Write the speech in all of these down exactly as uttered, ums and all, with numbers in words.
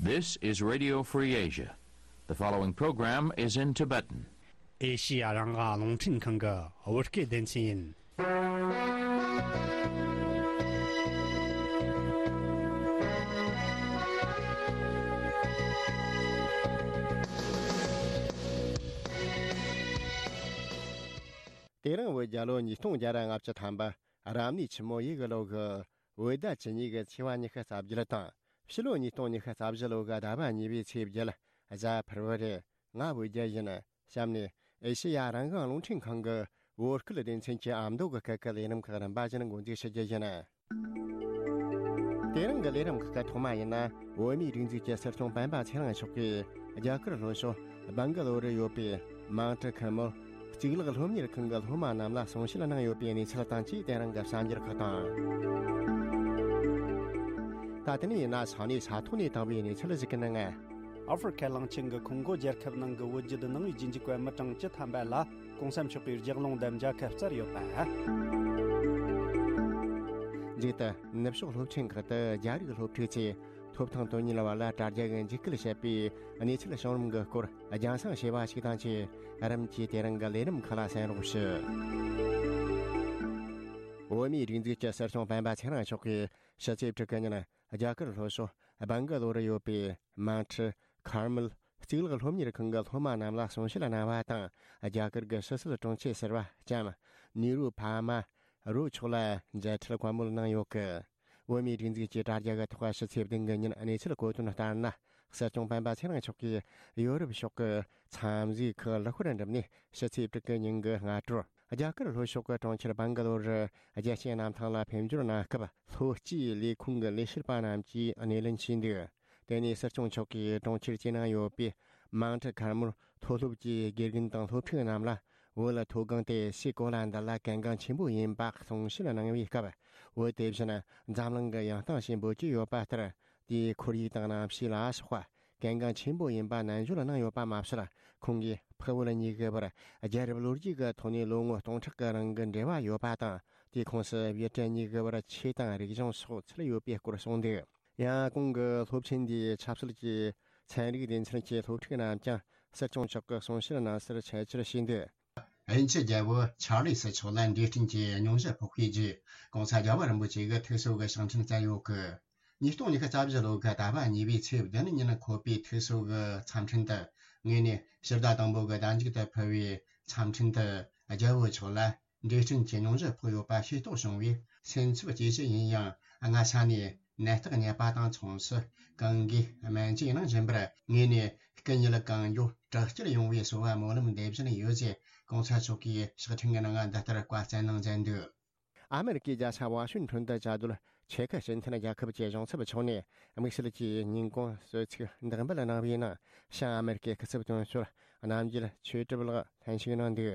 This is Radio Free Asia. The following program is in Tibetan. ཨེ་ཤི་ཡ་རང་དབང་རླུང་འཕྲིན་ཁང་གི་བོད་སྐད་སྡེ་ཚན་ཡིན། དེ་རིང་བོད་རྒྱལ་ལོ་ཉིས་སྟོང་བརྒྱ་ར་ལྔ་བཅུ་ཐམ་པ། རབ་གནས་ཆུ་མོ་ཡོས་གི་ལོ་གི་བོད་ཟླ་བཅུ་གཉིས་གི་ཚེས་པ་ཉི་ཤུ་རྩ་བརྒྱད་དང་། ཕྱི་ལོ་ཉིས་སྟོང་ཉི་ཤུ་རྩ་བཞི་ལོ་གི་ཟླ་བ་གཉིས་པའི་ཚེས་བརྒྱད། གཟའ་ཕུར་བུ་རེད། ང་བོད་རྒྱལ་ཡིན། གཤམ་ནས་ཨེ་ཤེ་ཡ་རང་དབང་རླུང་འཕྲིན་ཁང་གི་བོད་སྐད་སྡེ་ཚན་གྱི་ཨ་མདོ་གི་སྐད་ཀྱི་ལས་རིམ་ཁག་རིམ་པ་བཞིན་འགོ་འཛུགས་ཞུ་རྒྱུ་ཡིན། དེ་རིང་གི་ལས་རིམ་ཁག་གི་ཐོག་མ་ཡིན་ན། བོད་མིའི་སྒྲིག་འཛུགས་ཀྱི་སྲིད་སྐྱོང་སྤེན་པ་ཚེ་རིང་མཆོག་གིས་རྒྱ་གར་ལྷོ་ཕྱོགས་སྦང་ག་ལོར་ཡོད་པའི་མང་ཁྲི་ཁེར་མོལ་གཙུག་ལག་སློབ་གཉེར་ཁང་གི་སློབ་མ་རྣམས་ལ་གསུང་བཤད་གནང་ཡོད་པའི་གནས་ཚུལ་དང་བཅས། དེ་རིང་གི་གསར་འགྱུར་ཁག་དང་། ད་དེ་ནས་ཡིན་ན་ས་གནས་ས་ཐོག་ནས་བཏང་བའི་གནས་ཚུལ་ཞིག་གི་ནང་། ཨ་ཧྥེ་རི་ཁ་གླིང་ཆེན་གྱི་ཁོང་གོ་རྒྱལ་ཁབ་ནང་གི་བོད་བརྒྱུད་ནང་པའི་རྗེས་འཇུག་པ་མི་གྲངས་བཅུ་ཐམ་པ་ལ་གོང་ས་མཆོག་གིས་ལྗགས་ལུང་དང་མཇལ་ཁ་བསྩལ་ཡོད་པ། མཇུག་ཏུ་ནུབ་ཕྱོགས་སློབ་ཆེན་ཁག་ཏུ་རྒྱ་རིགས་སློབ་ཕྲུག་ཚོས་ཐོབ་ཐང་དོན་གཉེར་བ་ལ་དྲ་རྒྱ་གི་འཇིགས་སྐུལ་བྱེད་པའི་གནས་ཚུལ་བྱུང་རིམ་གྱི་སྐོར་རྒྱང་སྲིང་བྱས་པ་ཞིག་དང་བཅས། རིམ་གྱིས་དེ་རིང་གི་ལས་རིམ་ཁག་ལ་གསན་རོགས་ཞུ། བོད་མིའི་སྒྲིག་འཛུགས་ཀྱི་སྲིད་སྐྱོང་སྤེན་པ་ཚེ་རིང་མཆོག་གིས་ཕྱི་ཚེས་དྲུག་གི་ཉིན། རྒྱ་གར་ལྷོ་ཕྱོགས་སྦང་ག་ལོར་ཡོད་པའི་མང་ཁྲི་ཁེར་མོལ་གཙུག་ལག་སློབ་གཉེར་ཁང་གི་སློབ་མ་རྣམས་ལ་གསུང་བཤད་གནང་བ་དང་། རྒྱ་གར་གྱི་ཕྱི་སྲིད་དྲུང་ཆེ་ཟུར་པ་ལྕམ་ནི་རུ་པ་མ་རུ་མཆོག་ལ་མཇལ་འཕྲད་བཀའ་མོལ་གནང་ཡོད་སྐད། བོད་མིའི་སྒྲིག་འཛུགས་ཀྱི་དྲ་རྒྱ་གི་ཐོག་ཕྱི་ཚེས་བདུན་གྱི་ཉིན་གནས་ཚུལ་གོ་དོན་ལྟར་ན། སྲིད་སྐྱོང་སྤེན་པ་ཚེ་རིང་མཆོག་གིས་ཡོ་རོབ་ཕྱོགས་ཀྱི་འཚམས་གཟིགས་ཁག་ལྷག་པར་འགྲུབ་ནས། ཕྱི་ཚེས་དྲུག་གི་ཉིན་གྱི་སྔ་དྲོར་རྒྱ་གར་ལྷོ་ཕྱོགས་ཀྱི་གྲོང་ཁྱེར་སྦང་ག་ལོར་རྒྱལ་སྤྱིའི་གནམ་ཐང་ལ་ཕེབས་འབྱོར་གནང་སྐབས། ལྷོ་སྤྱིའི་ལས་ཁུངས་ཀྱི་ལས་བྱེད་པ་རྣམས་ཀྱིས་སྣེ་ལེན་བྱས་འདུག་དེ་ནས་སྲིད་སྐྱོང་མཆོག་གིས་གྲོང་ཁྱེར་གྱི་ནང་ཡོད་པའི་མང་ཁྲི་ཁེར་མོལ་མཐོ་སློབ་ཀྱི་དགེ་རྒན་དང་སློབ་ཕྲུག་རྣམས་ལ། བོད་མཐོ་སྒང་དེ་སའི་གོ་ལ་འདི་ལ་གལ་འགངས་ཆེན་པོ་ཡིན་པ་གསུང་བཤད་གནང་བའི་སྐབས། བོད་དེ་བཞིན་འཛམ་གླིང་གི་ཡང་སྟེང་ཞེས་འབོད་ཀྱི་ཡོད་པ་ལྟར། དེའི་ཁོར་ཡུག་དང་གནམ་གཤིས་ལ་སོགས་པ་གལ་འགངས་ཆེན་པོ་ཡིན་པ་ནན་བརྗོད་གནང་ཡོད་པ་མ་ཟད། ཁོང་གིས་འཕགས་བོད་གཉིས་ཀྱི་བར་རྒྱལ་རབས་ལོ་རྒྱུས་ཀྱི་ཐོག་ནས་ལོ་ངོ་སྟོང་ཕྲག་གི་རིང་གི་འབྲེལ་བ་ཡོད་པ་དང་། དེའི་ཁོངས་སུ་བོད་བྲག་གཉིས་ཀྱི་བར་ཆོས་དང་རིག་གཞུང་སོགས་ཚུད་ཡོད་པའི་སྐོར་གསུངས་འདུག་ཡང་གོང་གི་སློབ་ཆེན་འདིའི་ཆབ་སྲིད་ཀྱི་ཚན་རིག་སྡེ་ཚན་གྱི་སློབ་ཕྲུག་རྣམས་ཀྱང་སྲིད་སྐྱོང་མཆོག་གི་གསུང་བཤད་གནང་སར་ཆེད་བཅར་བྱས་འདུག་དབྱིན་ཇི་རྒྱལ་པོ་ཆར་ལི་སྲིད་མཆོག་ལ་འབྲས་སྤྲིན་གྱི་སྙུང་གཞི་ཕོག་པའི་རྗེས། གོང་ས་རྒྱལ་བ་རིན་པོ་ཆེ་གི་ཐུགས་གསོ་གི་ཕྱག་འཕྲིན་བསྩལ་ཡོད་སྐད། ཉིས་སྟོང་ཉི་ཤུ་རྩ་བཞི་ལོ་གི་ཟླ་བ་གཉིས་པའི་ཚེས་བདུན་ཉིན་འཁོད་པའི་ཐུགས་གསོ་གི་འཚམས་འཕྲིན་དུ། ངོས་ནས་ཕྱི་ཟླ་དང་པོ་གི་ཟླ་མཇུག་ཏུ་ཕུལ་བའི་འཚམས་འཕྲིན་དུ། རྒྱལ་པོ་མཆོག་ལ་འབྲས་སྤྲིན་གྱི་སྙུང་གཞི་ཕོག་ཡོད་པ་ཤེས་རྟོགས་བྱུང་བས། སེམས་འཚབ་སྐྱེ་གཞི་ཡིན་ཡང་། སྔ་ས་ནས་ནད་རྟགས་རྙེད་པ་དང་མཚུངས་སུ། གང་གིས་སྨན་བཅོས་གནང་བཞིན་པར། ངོས་ནས་སྐུ་ཉིད་གང་མགྱོགས་དྲག་སྐྱེད་ཡོང་བའི་གསོལ་བ་སྨོན་ལམ་འདེབས་བཞིན་ཡོད་ཅེས། གོང་ས་མཆོག་གིས་ཕྱག་འཕྲིན་གྱི་ནང་འདི་ལྟར་བཀའ་སྩལ་གནང་མཛད་འདུག་ཨ་མེ་རི་ཀའི་རྒྱལ་ས་ཝ་ཤིང་ཊོན་དུ་བཅའ་སྡོད་ཆེ་ཁུ་སྤྱི་མཐུན་རྒྱལ་ཁབ་ཀྱི་གཞུང་ཚབ་མཆོག་ནས། དམིགས་བསལ་གྱི་ཉིན་གུང་གསོལ་ཚིགས་འདེགས་འབུལ་གནང་བའི་ནང་། བྱང་ཨ་མེ་རི་ཀའི་སྐུ་ཚབ་དོན་གཅོད་རྣམ་རྒྱལ་ཆོས་གྲུབ་ལགས་ལྷན་ཞུགས་གནང་འདུག་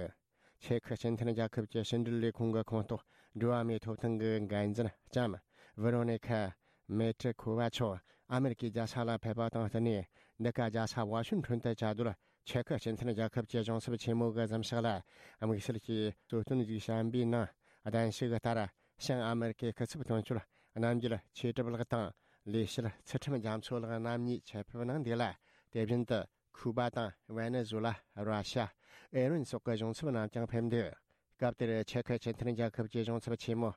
ཆེ་ཁུ་སྤྱི་མཐུན་རྒྱལ་ཁབ་ཀྱི་ཕྱི་འབྲེལ་ལས་ཁུངས་ཀྱི་ཁོངས་གཏོགས་འགྲོ་བ་མིའི་ཐོབ་ཐང་གི་འགན་འཛིན་ལྕམ་ཝེ་རོ་ནི་ཁ་མེ་ཏྲི་ཁུ་བ་མཆོག་ཨ་མེ་རི་ཀའི་རྒྱལ་ས་ལ་ཕེབས་པ་དང་བསྟུན་ནས། འདི་ག་རྒྱལ་ས་ཝ་ཤིང་ཊོན་དུ་བཅའ་སྡོད་ཆེ་ཁུ་སྤྱི་མཐུན་རྒྱལ་ཁབ་ཀྱི་གཞུང་ཚབ་ཆེན་མོ་གི་གཟིམ་ཤག་ལ། དམིགས་བསལ་གྱི་གཙོ་བསྟུན་ཞིག་བྱས་པའི་ནང་། གདན་ཞུ་གི་ལྟར། བྱང་ཨ་མེ་རི་ཀའི་སྐུ་ཚབ་དོན་གཅོད་རྣམ་རྒྱལ་ཆོས་གྲུབ་ལགས་དང་། ལས་བྱེད་ཚུལ་ཁྲིམས་རྒྱ་མཚོ་ལགས་རྣམ་གཉིས་ཆེད་ཕེབས་གནང་འདུག་ལ། དེ་བཞིན་དུ། ཁུ་པ་དང་ཝེ་ནེ་ཛུ་ལ། ར་ཤ། ཨེ་རན་སོགས་ཀྱི་གཞུང་ཚབ་རྣམས་ཀྱང་ཕེབས་འདུག་སྐབས་དེར་ཆེ་ཁུ་སྤྱི་མཐུན་རྒྱལ་ཁབ་ཀྱི་གཞུང་ཚབ་ཆེན་མོ་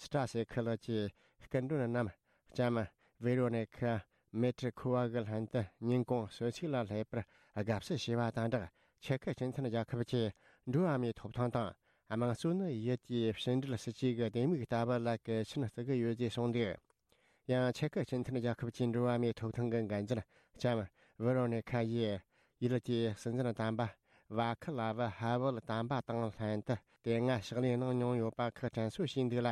སི་ཏྲ་སེ་ཁི་ལགས་ཀྱིས་སྐུ་མགྲོན་རྣམས་ལྕམ་ཝེ་རོ་ནི་ཁ་མེ་ཏྲི་ཁུ་བ་གི་ལྷན་དུ་ཉིན་གུང་གསོལ་ཚིགས་ལ་སླེབས་པར་དགའ་བསུ་ཞུས་པ་དང་སྦྲགས། ཆེ་ཁུ་སྤྱི་མཐུན་རྒྱལ་ཁབ་ཀྱིས་འགྲོ་བ་མིའི་ཐོབ་ཐང་དང་། དམངས་གཙོ་ནི་ཡུལ་དེའི་ཕྱི་འབྲེལ་སྲིད་ཇུས་ཀྱི་ལྡེ་མིག་ལྟ་བུ་ལ་གལ་ཆེན་བརྩི་གི་ཡོད་ཅེས་གསུངས་འདུག་ཡང་ཆེ་ཁུ་སྤྱི་མཐུན་རྒྱལ་ཁབ་ཀྱི་འགྲོ་བ་མིའི་ཐོབ་ཐང་གི་འགན་འཛིན་ལྕམ་ཝེ་རོ་ནི་ཁ་ཡིས། ཡུལ་དེའི་སྲིད་འཛིན་དམ་པ་ཝ་ཁི་ལ་ཝི་ཧ་ཝེལ་དམ་པ་དང་ལྷན་དུ་དེ་སྔ་ཕྱག་ལས་གནང་མྱོང་ཡོད་པ་ཁག་དྲན་གསོ་ཞུས་འདུག་ལ།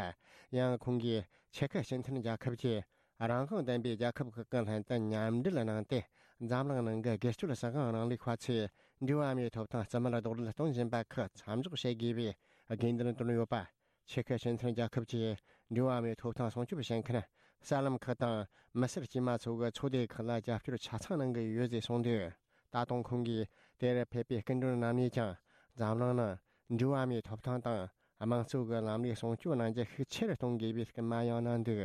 ཡང་ཁོང་གིས་ཆེ་ཁུ་སྤྱི་མཐུན་རྒྱལ་ཁབ་ཀྱིས་རང་དབང་ལྡན་པའི་རྒྱལ་ཁབ་ཁག་གི་ལྷན་དུ་མཉམ་འབྲེལ་གནང་སྟེ། འཛམ་གླིང་ནང་གི་སྒེར་གཅོད་བྱ་གཞག་རིང་ལུགས་པ་ཚོས་འགྲོ་བ་མིའི་ཐོབ་ཐང་རྩིས་མེད་རྡོག་རོལ་གཏོང་བཞིན་པ་ཁག་མཚམས་འཇོག་བྱེད་དགོས་པའི་དགོས་འདུན་བཏོན་ཡོད་པ། ཆེ་ཁུ་སྤྱི་མཐུན་རྒྱལ་ཁབ་ཀྱིས་འགྲོ་བ་མིའི་ཐོབ་ཐང་སྲུང་སྐྱོབ་བྱེད་མཁན་གསར་ལམ་ཁག་དང་མི་སེར་དཀྱུས་མ་ཚོ་གི་ཚོགས་སྡེ་ཁག་ལ་རྒྱབ་སྐྱོར་ཆ་ཚང་གནང་གི་ཡོད་ཅེས་གསུངས་འདུག་ད་དུང་ཁོང་གིས་དེར་ཕེབས་པའི་སྐུ་མགྲོན་རྣམ་གཉིས་ཀྱང་འཛམ་གླིང་ནང་འགྲོ་བ་མིའི་ཐོབ་ཐང་དང་དམངས་གཙོ་གི་ལམ་ལུགས་སྲུང་སྐྱོབ་གནང་རྒྱུ་ཤུགས་ཆེ་རུ་གཏོང་དགོས་པའི་སྐུལ་མ་ཡང་གནང་འདུག་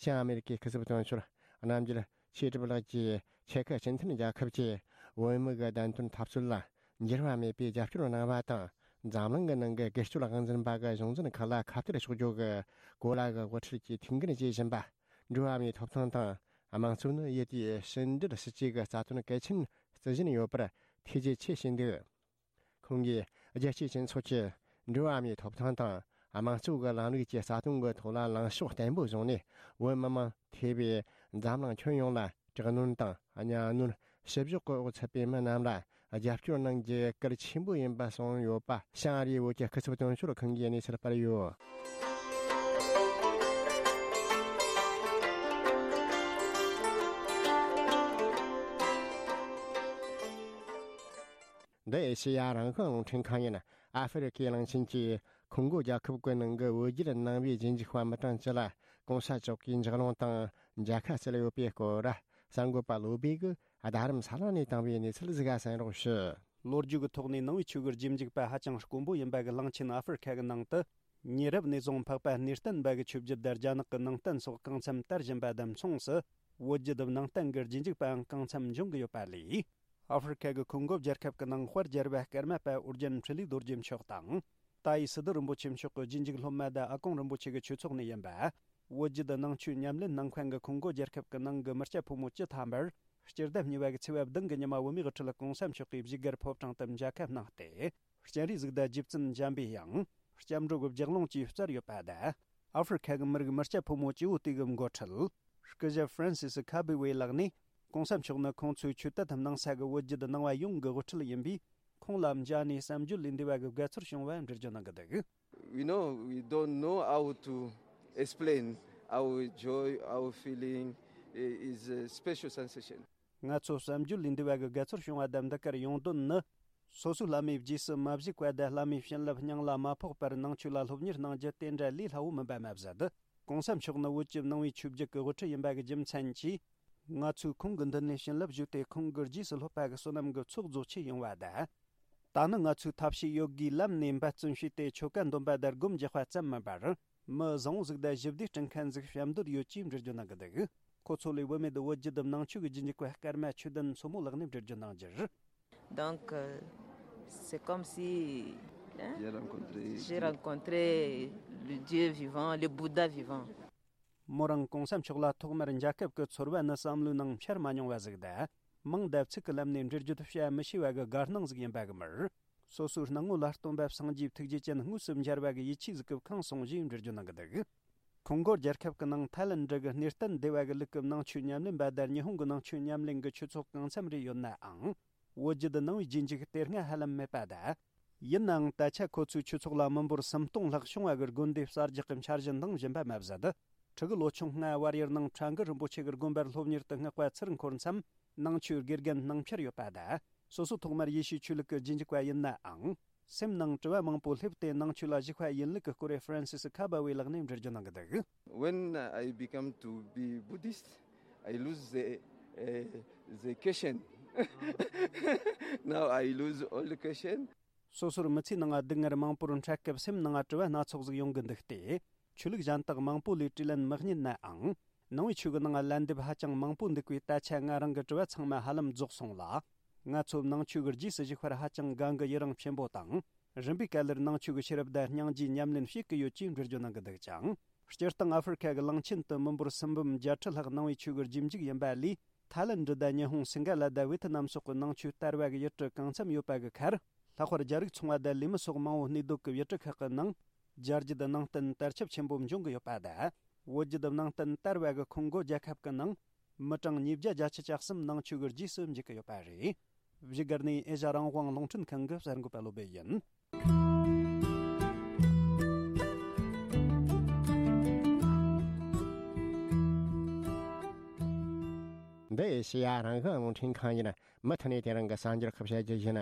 བྱང་ཨ་མེ་རི་ཀའི་སྐུ་ཚབ་དོན་གཅོད་རྣམ་རྒྱལ་ཆོས་གྲུབ་ལགས་ཀྱིས་ ཆེ་ཁ་སྤྱི་མཐུན་རྒྱལ་ཁབ་ཀྱིས་བོད་མི་གི་བདེན་དོན་འཐབ་རྩོད་ལ་འགྱུར་བ་མེད་པའི་རྒྱབ་སྐྱོར་གནང་བ་དང་། འཛམ་གླིང་གི་ནང་གི་སྒེར་གཅོད་དབང་འཛིན་པ་གི་གཞུང་འཛིན་ཁག་ལ་ཁ་གཏད་གཅོག་རྒྱུ་གི་གོ་ལ་གི་དབུ་ཁྲིད་ཀྱིས་ཐུགས་འགན་བཞེས་བཞིན་པ། འགྲོ་བ་མིའི་ཐོབ་ཐང་དང་དམངས་གཙོ་ནི་ཡུལ་དེའི་ཕྱི་འབྲེལ་སྲིད་ཇུས་ཀྱི་རྩ་དོན་གལ་ཆེན་བརྩི་བཞིན་ཡོད་པར་ཐུགས་རྗེ་ཆེ་ཞུས་འདུག། ཁོང་གིས་རྒྱལ་སྤྱིའི་སྤྱི་ཚོགས་ཀྱིས་འགྲོ་བ་མིའི་ཐོབ་ཐང་དང་དམངས་གཙོ་གི་ལམ་ལུགས་ཀྱི་རྩ་དོན་གྱི་ཐོག་ལ་ལངས་ཕྱོགས་བརྟན་པོ་བཟུང་ནས། བོད་མི་མང་ཐེ་བའི་འཛམ་གླིང་ཁྱོན་ཡོངས་ལ་དྲག་གནོན་དང་གཉའ་གནོན། བཤུ་གཞོག་གི་འོག་ཚུད་པའི་མི་རྣམས་ལ་རྒྱབ་སྐྱོར་གནང་རྒྱུ་གལ་ཆེན་པོ་ཡིན་པ་གསུངས་ཡོད་པ། ཞང་ཨ་རིའི་བོད་ཀྱི་སྐུ་ཚབ་དོན་གཅོད་ཁང་གིས་གནས་ཚུལ་སྤེལ་ཡོད། འདི་ཨེ་ཤེ་ཡ་རང་དབང་རླུང་འཕྲིན་ཁང་ཡིན། ཨ་ཧྥེ་རི་ཁའི་གླིང་ཆེན་གྱི་ཁོང་གོ་རྒྱལ་ཁབ་ཀྱི་ནང་གི་བོད་བརྒྱུད་ནང་པའི་རྗེས་འཇུག་པ་མི་གྲངས་ཅི་ལ་གོང་ས་མཆོག་གིས་འཇགས་སློང་དང་མཇལ་ཁ་བསྩལ་ཡོད་པའི་སྐོར། གསར་འགོད་པ་བློ་བྷེ་གིས་རྡ་རམ་ས་ལ་ནས་བཏང་བའི་གནས་ཚུལ་ཟིག་ག་གསན་རོགས་ཞུ། ལོ་རྒྱུས་ཀྱི་ཐོག་ནས་ནང་པའི་ཆོས་ཀྱི་རྗེས་འཇུག་པ་ཧ་ཅང་དཀོན་པོ་ཡིན་པ་གི་གླིང་ཆེན་ཨ་ཧྥེ་རི་ཁ་གི་ནང་དུ། ཉེ་རབས་ནས་བཟུང་འཕགས་པ་གནས་བརྟན་པ་གི་ཆོས་བརྒྱུད་དང་རྒྱ་ནག་གི་ནང་བསྟན་སོགས་གང་འཚམ་དར་བཞིན་པ་དང་མཚུངས་སུ། བོད་བརྒྱུད་ནང་བསྟན་གྱི་རྗེས་འཇུག་པའང་གང་འཚམ་འབྱུང་གི་ཡོད་པ་ལས། ཨ་ཧྥེ་རི་ཁ་གི་ཁོང་གོ་རྒྱལ་ཁབ་ཀྱི་ནང་དཔལ་རྒྱལ་བ་ཀརྨ་པ་ཨོ་རྒྱན་འཕྲིན་ལས་རྡོ་རྗེ་མཆོག་དང་། ཏཱ་ཡི་སི་ཏུ་རིན་པོ་ཆེ་མཆོག་གི་རྗེས་འཇུག་སློབ་མ་དང་ཨ་ཀོང་རིན་པོ་ཆེ་གི་ཆོས་ཚོགས་ནས་ཡིན་པ། བོད་བརྒྱུད་ནང་ཆོས་ཉམས་ལེན་གནང་མཁན་གྱི་ཁོང་གོ་རྒྱལ་ཁབ་ཀྱི་ནང་གི་མི་སྐྱ་ཕོ་མོ་བཅུ་ཐམ་པར། སྤྱི་ཟླ་གཉིས་པ་གི་ཚེས་པ་བདུན་གྱི་ཉི་མ་བོད་མིའི་དབུ་ཁྲིད་གོང་ས་མཆོག་གིས་བཞུགས་སྒར་ཕོ་བྲང་དུ་མཇལ་ཁ་གནང་སྟེ། སྤྱན་རས་གཟིགས་དང་རྗེ་བཙུན་འཇམ་པའི་དབྱངས། སྐྱབས་འགྲོ་གི་ལྗགས་ལུང་བཅས་སྩལ་ཡོད་པ་དང་། ཨ་ཧྥེ་རི་ཁ་གི་མི་རིགས་མི་སྐྱ་ཕོ་མོ་སྐྱེ་བོ་དེ་གི་འགོ་ཁྲིད། སྐུ་ཞབས་ཧྥ་རན་སི་སི་ཁ་བི་ཝེ་ལགས་ནས། གོང་ས་མཆོག་ནི་ཁོང་ཚོའི་ཆོས་དད་དམ་གནང་ས་གི་བོད་བརྒྱུད་ནང་པ་ཡོངས་ཀྱི་དབུ་ཁྲིད་ཡིན་པས། ཁོང་ལ་མཇལ་ནས་བསམ་བརྗོད་ལས་འདས་པ་གི་དགའ་ཚོར་བྱུང་བ་འགྲེལ་བརྗོད་གནང་གི་འདུག། We know we don't know how to explain our joy, our feeling. Is a special sensation. ང་ཚོ་བསམ་བརྗོད་ལས་འདས་པ་གི་དགའ་ཚོར་བྱུང་བ་དང་འདི་གར་ཡོང་དོན་ནི། སོ་སོའི་བླ་མའི་རྗེས་སུ་མ་བཞུགས་པ་དང་བླ་མའི་བྱིན་རླབས་སྙིང་ལ་མ་ཕོག་པར་ནང་ཆོས་ལ་སློབ་གཉེར་གནང་རྒྱུ་དེ་འདྲ་ལས་སླ་བོ་མིན་པ་མ་ཟད། གོང་ས་མཆོག་ནི་བོད་ཀྱི་ནང་པའི་ཆོས་བརྒྱུད་ཀྱི་དབུ་ཁྲིད་ཡིན་པ་གི་རྒྱུ་མཚན་གྱིས། ང་ཚོས་ཁོང་གི་མདུན་ནས་བྱིན་རླབས་ཞུས་ཏེ་ཁོང་གི་རྗེས་སུ་སློབ་པ་གི་བསོད་ནམས་ཀྱི་ཚོགས་རྫོགས་ཆེད་ཡོང་བ་དང་། ད་ནི་ང་ཚོས་ཐབས་ཤེས་ཡོད་དགུའི་ལམ་ནས་འབད་བརྩོན་བྱས་ཏེ་ཆོ་ག་འདོན་པ་དང་སྒོམ་རྒྱག་པ་ཙམ་མིན་པར། མི་བཟང་བོ་ཟིག་དང་ཞི་བདེ་སྐྲུན་མཁན་ཟིག་བྱེད་འདོད་ཡོད་ཅེས་འགྲེལ་བརྗོད་གནང་གི་འདུག། ཁོ་ཚོ་ལས་བུད་མེད་བོད་བརྒྱུད་ནང་ཆོས་ཀྱི་རྗེས་འཇུག་པ་ཀརྨ་ཆོས་ལྡན་མཚོ་མོ་ལགས་ནས་འགྲེལ་བརྗོད་གནང་རྒྱུར། Donc, euh, c'est comme si, hein, j'ai rencontré, j'ai rencontré le Dieu vivant, le Bouddha vivant. མོ་རང་གོང་ས་མཆོག་ལ་ཐོག་མར་མཇལ་སྐབས་ཀྱི་ཚོར་བ་ནི་བསམ་བློའི་ནང་འཆར་མ་མྱོང་བ་ཟིག་དང་། མིང་དང་ཚིག་གི་ལམ་ནས་འགྲེལ་བརྗོད་བྱ་མི་ཤེས་པ་གི་དགའ་སྣང་ཟིག་ཡིན་པ་གི་མིར། སོ་སོའི་སྣང་ངོ་ལ་སྟོན་པ་སངས་རྒྱས་ཐུགས་རྗེ་ཅན་དངོས་སུ་མཇལ་བ་གི་ཡིད་ཆེས་ཟིག་གིས་ཁེངས་སོང་ཞེས་འགྲེལ་བརྗོད་གནང་གི་འདུག། ཁོང་གོ་རྒྱལ་ཁབ་ཀྱི་ནང་ཐའི་ལན་ཌི་གི་གནས་བརྟན་སྡེ་བ་གི་ལུགས་ཀྱི་ནང་ཆོས་ཉམས་ལེན་པ་དང་ཉི་ཧོང་གི་ནང་ཆོས་ཉམས་ལེན་གྱི་ཆོས་ཚོགས་གང་འཚམ་རེ་ཡོད་ནའང་། བོད་བརྒྱུད་ནང་པའི་རྗེས་འཇུག་དེ་སྔ་ཧ་ལམ་མེད་པ་དང་། ཡིན་ནའང་ད་ཆ་ཁོ་ཚོའི་ཆོས་ཚོགས་ལ་མི་འབོར་སུམ་སྟོང་ལྷག་བྱུང་བ་གི་དགོན་སྡེ་གསར་རྒྱག་གི་འཆར་གཞི་འདིང་བཞིན་པ་མ་ཟད། ཕྲུ་གུ་ལོ་ཆུང་སྔ་བར་ཡུལ་ནང་ཁྲ་འགུ་རིན་པོ་ཆེ་གི་དགོན་པར་སློབ་གཉེར་དུ་བསྔགས་པ་ཚུར་འཁོར་མཚམས། ནང་ཆོས་དགེ་རྒན་ནང་འཁྱར་ཡོད་པ་དང་། སོ་སོ་ཐོག་མར་ཡེ་ཤུའི་ཆོས་ལུགས་ཀྱི་རྗེས་འཇུག་པ་ཡིན་ནའང་། སེམས་ནང་དྲི་བ་མང་པོ་སླེབས་ཏེ་ནང་ཆོས་ལ་ཞུགས་པ་ཡིན་ལུགས་ཀྱི་སྐོར་རེ་ཧྥ་རན་སི་སི་ཁ་བ་ཝེ་ལགས་ནས་འགྲེལ་བརྗོད་གནང་གི་འདུག། When I become to be Buddhist, I lose the, uh, the question. Now I lose all the question. སོ་སོར་མི་ཚེའི་ནང་སྡུག་བསྔལ་མང་པོར་འཕྲད་སྐབས་སེམས་ནང་དྲི་བ་སྣ་ཚོགས་ཟིག་ཡོང་གི་འདུག་སྟེ། ཆོས་ལུགས་གཞན་དག་མང་པོ་ལས་དྲིས་ལན་མི་རྙེད་ནའང་། ནང་པའི་ཆོས་ཀྱི་ནང་ལན་འདེབས་ཧ་ཅང་མང་པོ་འདུག་པས། ད་ཆ་ང་རང་གི་དྲི་བ་ཚང་མ་ཧ་ལམ་རྫོགས་སོང་ལ། ང་ཚོ་ནང་ཆོས་ཀྱི་རྗེས་སུ་ཞུགས་པར་ཧ་ཅང་དགའ་མགུ་ཡི་རང་ཆེན་པོ་དང་། རིམ་པས་ག་ལེར་ནང་ཆོས་ཀྱི་ཤེས་རབ་དང་སྙིང་རྗེའི་ཉམས་ལེན་བྱེད་ཀྱི་ཡོད་ཅེས་འགྲེལ་བརྗོད་གནང་གི་འདུག་ཅིང་། སྤྱིར་བཏང་ཨ་ཧྥེ་རི་ཁ་གི་གླིང་ཆེན་དུ་མི་འབོར་སུམ་འབུམ་བརྒྱད་ཁྲི་ལྷག་ནང་པའི་ཆོས་ཀྱི་རྗེས་འཇུག་ཡིན་པ་ལས། ཐའི་ལན་ཌི་དང་ཉི་ཧོང་སིང་ག་ལ་དང་ཝེ་ཐི་ནམ་སོགས་ཀྱི་ནང་ཆོས་དར་བ་གི་ཡུལ་གྲུ་གང་འཚམ་ཡོད་པ་གི་ཁར། ལྷག་པར་རྒྱ་རིགས་ཚོང་བ་དང་ལས་མི་སོགས་མང་བོ་གནས་སྡོད་ཀྱི་ཡུལ་གྲུ་ཁག་གི་ནང་། རྒྱ་རྒྱུད་ནང་བསྟན་དར་ཁྱབ་ཆེན་པོ་འབྱུང་གི་ཡོད་པ་དང་། བོད་བརྒྱུད་ནང་བསྟན་དར་བ་གི་ཁོང་གོ་རྒྱལ་ཁབ་ཀྱི་ནང་། མི་གྲངས་ཉིས་བརྒྱ་བརྒྱད་ཅུ་གྱ་གསུམ་ནང་ཆོས་ཀྱི་རྗེས་སུ་འཇུག་གི་ཡོད་པ་རེད། བཞུགས་སྒར་ནས་ཨེ་ཤ་རང་དབང་རླུང་འཕྲིན་ཁང་གི་གསར་འགོད་པ་བློ་བྷེ་ཡིན། འདི་ཨེ་ཤེ་ཡ་རང་དབང་རླུང་འཕྲིན་ཁང་ཡིན། མུ་མཐུད་ནས་དེ་རིང་གི་གསར་འགྱུར་ཁག་བཤད་རྒྱུ་ཡིན།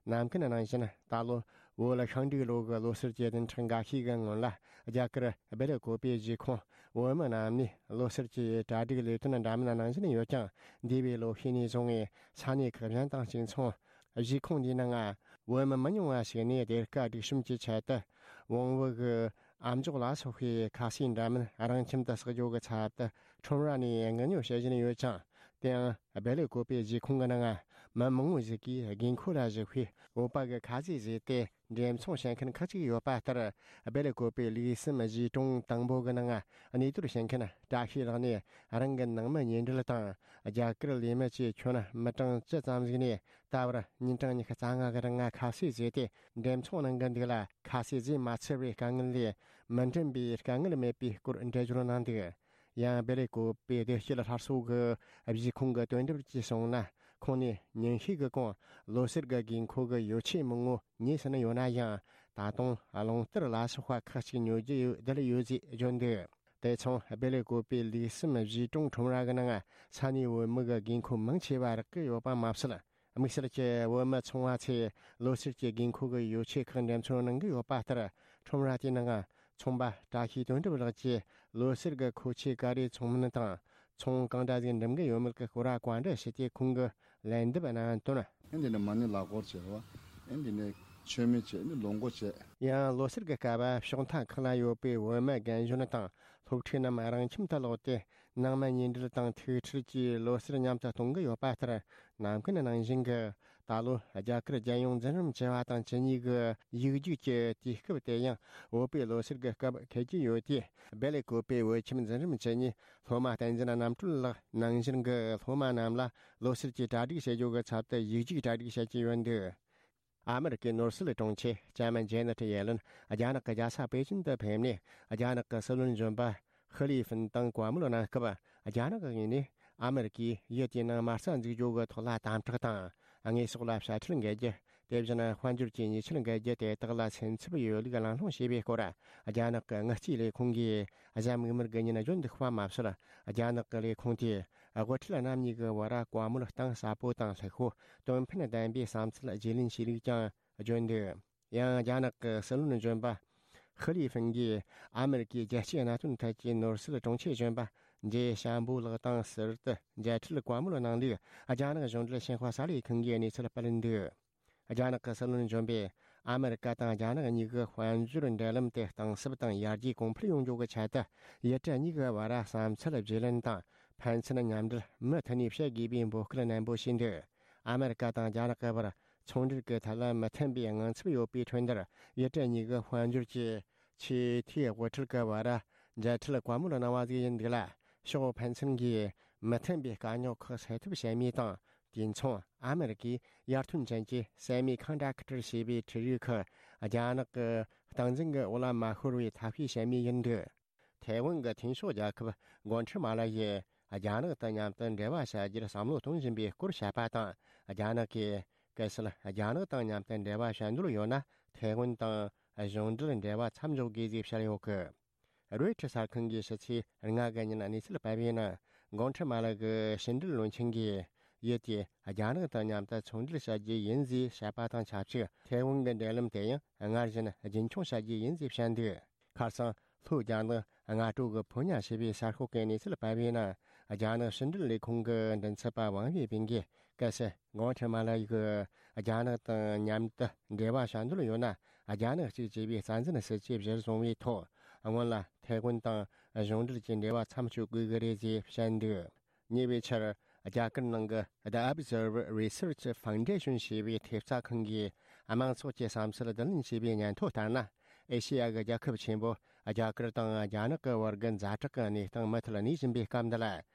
ནམ་རྒྱུན་ནང་བཞིན་ད་ལོ་བོད་ཤིང་འབྲུག་ལོ་གི་ལོ་སར་གྱི་བདུན་ཕྲག་འགའ་ཤས་ཀྱི་སྔོན་ལ། རྒྱ་གར་སྦེལ་ཀོབ་པའི་གཞིས་ཁོངས་བོད་མི་རྣམས་ནས་ལོ་སར་གྱི་གྲ་སྒྲིག་ལས་དོན་འདྲ་མིན་ནང་བཞིན་ཡོད་ཀྱང་། འདས་པའི་ལོ་ཤས་ནས་བཟུང་བའི་ས་གནས་ཁག་གཞན་དང་གཅིག་མཚུངས། གཞིས་ཁོངས་འདིའི་ནང་བོད་མི་མི་ཉུང་བ་ཞིག་ནས་སྡེར་ཁ་སྒྲིག་གཤོམ་གྱི་ཆེད་དུ་བོང་བུ་གི་ཨམ་ཅོག་ལ་སོགས་པའི་ཁ་ཟས་འདྲ་མིན་རང་ཁྱིམ་དུ་བསགས་རྒྱུ་གི་ཚབ་ཏུ་ཁྲོམ་ར་ནས་དངུལ་ཉོ་བྱེད་བཞིན་ཡོད་ཅིང་། དེ་ཡང་སྦེ་ལེ་ཀོ་པེ་གཞིས་ཁོངས་ཀྱི་ནང་མི་མང་བོ་ཞིག་གིས་དགོས་མཁོ་ལ་གཞིགས་པའི་བོད་པ་གི་ཁ་ཟས་བཟོས་ཏེ་འགྲེམས་ཚོང་བྱེད་མཁན་ཁག་ཅིག་ཡོད་པ་ལྟར། སྦེ་ལེ་ཀོ་པེ་ལུགས་གསུམ་གཞིས་གྲོང་དང་པོ་གི་ནང་གནས་སྡོད་བྱེད་མཁན་བཀྲ་ཤིས་ལགས་ནས། རང་གི་ནང་མི་ཉེ་འབྲེལ་དང་རྒྱ་གར་ལས་མི་བཅས་ཁྱོན་མི་གྲངས་བཅུ་ཙམ་ཞིག་ནས། ད་བར་ཉིན་གྲངས་ཉི་ཤུ་རྩ་ལྔ་གི་རིང་ཁ་ཟས་བཟོས་ཏེ་འགྲེམས་ཚོང་གནང་གི་འདུག་ལ། ཁ་ཟས་བཟོས་མ་ཚར་བའི་དཀའ་ངལ་ལས་མི་འགྲིམ་པའི་དཀའ་ངལ་མེད་པའི་སྐོར་འགྲེལ་བརྗོད་གནང་འདུག། ཡང་སྦེ་ལེ་ཀོ་པེ་བདེ་སྐྱིད་སླར་གསོ་གི་གཞིས་ཁོངས་ཀྱི་དོན་གྲུབ་ཀྱིས་གསུངས་ན། ཁོང་ནས་ཉིན་ཤས་ཀྱི་གོང་ལོ་གསར་གྱི་དགོས་མཁོ་གི་ཡོ་ཆས་མང་བོ་ཉོས་ཟིན་ཡོད་ན་ཡང་། ད་དུང་རླུང་རྟར་ལ་སོགས་པ་ཁག་ཅིག་ཉོ་རྒྱུ་ཡོད་བསྡད་ཡོད་ཅེས་བརྗོད་འདུག། དེ་མཚུངས་སྦེ་ལེ་ཀོ་པེ་ལུགས་གསུམ་གཞིས་གྲོང་ཁྲོམ་ར་གི་ནང་ས་གནས་བོད་མི་གི་དགོས་མཁོ་མང་ཆེ་བ་རག་གི་ཡོད་པ་མ་ཟད། དམིགས་བསལ་གྱི་བོད་མི་ཚོང་བ་ཚོས་ལོ་གསར་གྱི་དགོས་མཁོ་གི་ཡོ་ཆས་ཁག་འགྲེམས་ཚོང་གནང་གི་ཡོད་པ་ལྟར། ཁྲོམ་ར་དེའི་ནང་ཚོང་པ་བཀྲ་ཤིས་དོན་གྲུབ་ལགས་ཀྱིས་ལོ་གསར་གྱི་མཁོ་ཆས་ག་རེ་ཚོང་མིན་དང་ཚོང་གང་འདྲ་ཟིག་འགྲིམ་གི་ཡོད་མེད་ཀྱི་སྐོར་བ་བཀའ་འདྲི་ཞུས་ཏེ། ཁོང་གིས་ལན་འདེབས་གནང་དོན། ཨེ་འདི་ནས་མ་ཎི་ལག་འཁོར་བྱས་པ། ཨེ་འདི་ནས་མཆོད་མེ་བྱས་ནས་ལོ་འགོ་བྱས། ཡང་ལོ་གསར་གྱི་སྐབས་ཕྱོགས་མཐའ་ཁག་ལ་ཡོད་པའི་བོད་མི་རྒན་གཞོན་དང་སློབ་ཕྲུག་རྣམས་རང་ཁྱིམ་དུ་ལོག་སྟེ། ནང་མི་ཉེ་འབྲེལ་དང་ཐུག་འཕྲད་ཀྱིས་ལོ་གསར་མཉམ་དུ་གཏོང་གི་ཡོད་པ་ལྟར། ནམ་རྒྱུན་ནང་བཞིན་གྱི་ད་ལོ་རྒྱ་གར་རྒྱལ་ཡོངས་འཛིན་རིམ་བཅུ་བ་དང་བཅུ་གཉིས་ཀྱི་ཡིག་རྒྱུགས་ཀྱི་དུས་སྐབས་དེ་ཡང་བོད་པའི་ལོ་གསར་གྱི་སྐབས་འཁེལ་གྱི་ཡོད་དེ། སྦེ་ལེ་ཀོ་པེ་བོད་ཁྱིམ་འཛིན་རིམ་བཅུ་གཉིས་སློབ་མ་བསྟན་འཛིན་རྣམ་གྲོལ་ལགས་ནང་བཞིན་གྱི་སློབ་མ་རྣམས་ལ་ལོ་གསར་གྱི་གྲ་སྒྲིག་བྱེད་རྒྱུ་གི་ཚབ་ཏུ་ཡིག་རྒྱུགས་གྲ་སྒྲིག་བྱེད་ཀྱི་ཡོད་འདུག། ཨ་མེ་རི་ཀའི་ནོར་སྲིད་དྲུང་ཆེ་ལྕམ་ཇེ་ནེ་ཊི་ཡེ་ལེན་རྒྱ་ནག་གི་རྒྱལ་ས་པེ་ཅིན་དུ་ཕེབས་ནས། རྒྱ་ནག་གི་སྲིད་བློན་གཞོན་པ་ཧི་ལི་ཧྥིན་དང་བཀའ་མོལ་གནང་སྐབས། རྒྱ་ནག་གི་ངོས་ནས་ཨ་མེ་རི་ཀས་ཡུལ་དེའི་ནང་མ་རྩ་འཛུགས་རྒྱུ་གི་ཐོག་ལ་དམ་དྲག་དང་། དངོས་ཟོག་ལ་དཔྱ་ཁྲལ་འགེལ་རྒྱུ། དེ་བཞིན་དཔལ་འབྱོར་གྱི་ཉེས་ཆད་འགེལ་རྒྱུ་དེ་དག་ལ་སེམས་འཚབ་ཡོད་ལུགས་གླེང་སློང་བྱས་པའི་སྐོར། རྒྱ་ནག་གི་དངུལ་རྩིས་ལས་ཁུངས་ཀྱིས་གཟའ་མིག་དམར་གྱི་ཉིན་བརྗོད་འདུག་པ་མ་ཟད། རྒྱ་ནག་གི་ལས་ཁུངས་དེས་དབུ་ཁྲིད་རྣམ་གཉིས་ཀྱི་བར་བཀའ་མོལ་གཏིང་ཟབ་པོ་དང་ལྷུག་པོ། དོན་ཕན་ལྡན་པའི་བསམ་ཚུལ་བརྗེ་ལེན་བྱས་ལུགས་ཀྱང་བརྗོད་འདུག། ཡང་རྒྱ་ནག་གི་སྲིད་བློན་གཞོན་པ་ཧི་ལི་ཧྥིན་གྱིས་ཨ་མེ་རི་ཀའི་རྒྱལ་སྤྱིའི་གནད་དོན་ཐད་ཀྱི་ནོར་སྲིད་དྲུང་ཆེ་གཞོན་པ་ཇེ་ཤམ་བྷོ་ལགས་དང་ཟུར་དུ་མཇལ་འཕྲད་བཀའ་མོལ་གནང་ལུགས། རྒྱ་ནག་གཞུང་འབྲེལ་ཤིན་ཧྭ་གསར་ལས་ཁང་གིས་གནས་ཚུལ་སྤེལ་འདུག། རྒྱ་ནག་གི་སྲིད་བློན་གཞོན་པས་ཨ་མེ་རི་ཀ་དང་རྒྱ་ནག་གཉིས་ཀྱི་དཔལ་འབྱོར་འབྲེལ་ལམ་དེ་གཏིང་ཟབ་དང་ཡར་རྒྱས་གོང་འཕེལ་ཡོང་རྒྱུ་གི་ཆེད་དུ། ཡུལ་གྲུ་གཉིས་ཀྱི་བར་བསམ་ཚུལ་བརྗེ་ལེན་དང་ཕན་ཚུན་མཉམ་འབྲེལ་མུ་མཐུད་ནས་བྱེད་དགོས་པའི་འབོད་སྐུལ་ནན་པོ་བྱས་འདུག། ཨ་མེ་རི་ཀ་དང་རྒྱ་ནག་གི་བར་ཚོང་འབྲེལ་གྱི་ཐད་ལ་མི་མཐུན་པའི་དངངས་འཚབ་ཡོད་པའི་ཁྲོད་འདིར། ཡུལ་གྲུ་གཉིས་ཀྱི་དཔལ་འབྱོར་གྱི་ཆེས་མཐོའི་དབུ་ཁྲིད་ཀྱི་བར་མཇལ་འཕྲད་བཀའ་མོལ་གནང་བ་ཞིག་ཡིན་འདུག་ལ། ཕྱོགས་ཕན་ཚུན་གྱིས་མི་མཐུན་པའི་དཀའ་རྙོག་ཁག་སེལ་ཐབས་བྱེད་མུས་དང་། དུས་མཚུངས་ཨ་མེ་རི་ཀས་ཡར་ཐོན་ཅན་གྱི་ཟད་མེད་ཁང་གྲས་ཁ་བྲལ་བྱས་པའི་འཕྲུལ་རིག་ཁག་རྒྱ་ནག་གི་སྟངས་འཛིན་གྱི་འོག་ལ་མ་ཤོར་བའི་ཐབས་ཤེས་བྱེད་མུས་ཡིན་འདུག། ཐའེ་ཝན་གྱི་མཐུན་ཕྱོགས་རྒྱལ་ཁབ་གོ་ཁྲི་མ་ལ་ཡིས་རྒྱ་ནག་དང་མཉམ་དུ་འབྲེལ་བ་བྱ་རྒྱུར་བསམ་བློ་གཏོང་བཞིན་པའི་སྐོར་བཤད་པ་དང་། རྒྱ་ནག་གིས་གལ་སྲིད་རྒྱ་ནག་དང་མཉམ་དུ་འབྲེལ་བ་བྱ་འདོད་ཡོད་ན། ཐའེ་ཝན་དང་གཞུང་འབྲེལ་འབྲེལ་བ་མཚམས་འཇོག་དགོས་ཞེས་བཤད་ཡོད་གི། རོའི་ཊར་གསར་ཁང་གིས་ཕྱི་ཚེས་ལྔ་གི་ཉིན་གནས་ཚུལ་སྤེལ་བའི་ནང་། གོང་ཁྲི་མ་ལགས་ཀྱི་ཕྱི་འབྲེལ་བློན་ཆེན་གྱིས་ཡུལ་དེས་རྒྱ་ནག་དང་མཉམ་དུ་ཚོང་འབྲེལ་བྱ་རྒྱུ་ཡིན་ཞེས་བཤད་པ་དང་ཆབས་ཅིག། ཐའེ་ཝན་གྱི་འབྲེལ་ལམ་དེ་ཡང་སྔར་བཞིན་རྒྱུན་འཁྱོངས་བྱ་རྒྱུ་ཡིན་ཞེས་བཤད་འདུག། ཁ་སང་ལྷོ་རྒྱ་ནག་སྔ་དྲོ་གི་ཕོ་ཉ་ཞེས་པའི་གསར་ཤོག་གིས་གནས་ཚུལ་སྤེལ་བའི་ནང་། རྒྱ་ནག་ཕྱི་འབྲེལ་ལས་ཁུངས་ཀྱི་མགྲིན་ཚབ་པ་ཝང་ཝེ་པིན་གྱིས། གལ་སྲིད་གོང་ཁྲི་མ་ལགས་ཀྱིས་རྒྱ་ནག་དང་མཉམ་དུ་འབྲེལ་བ་བྱ་འདོད་ཡོད་ན། རྒྱ་ནག་གཅིག་ཅེས་པའི་རྩ་འཛིན་སྲིད་ཇུས་གཞིར་བཟུང་བའི་ཐོག། སྔོན་ལ་ཐའེ་ཝན་དང་གཞུང་འབྲེལ་གྱི་འབྲེལ་བ་མཚམས་གཅོད་དགོས་ཀྱི་རེད་ཅེས་བཤད་འདུག། ཉེ་བའི་ཆར། རྒྱ་གར་ནང་གི་The Observer Research Foundation ཞེས་པའི་ཐེབས་རྩ་ཁང་གིས་དམངས་ཚོགས་ཀྱི་བསམ་ཚུལ་བསྡུ་ལེན་བྱས་པའི་སྙན་ཐོ་ལྟར་ན། ཨེ་ཤེ་ཡ་གི་རྒྱལ་ཁབ་ཆེན་པོ་རྒྱ་གར་དང་རྒྱ་ནག་གི་བར་གྱི་ཛ་དྲག་གི་གནས་སྟངས་མུ་མཐུད་གནས་བཞིན་པའི་སྐབས་འདི་ལ།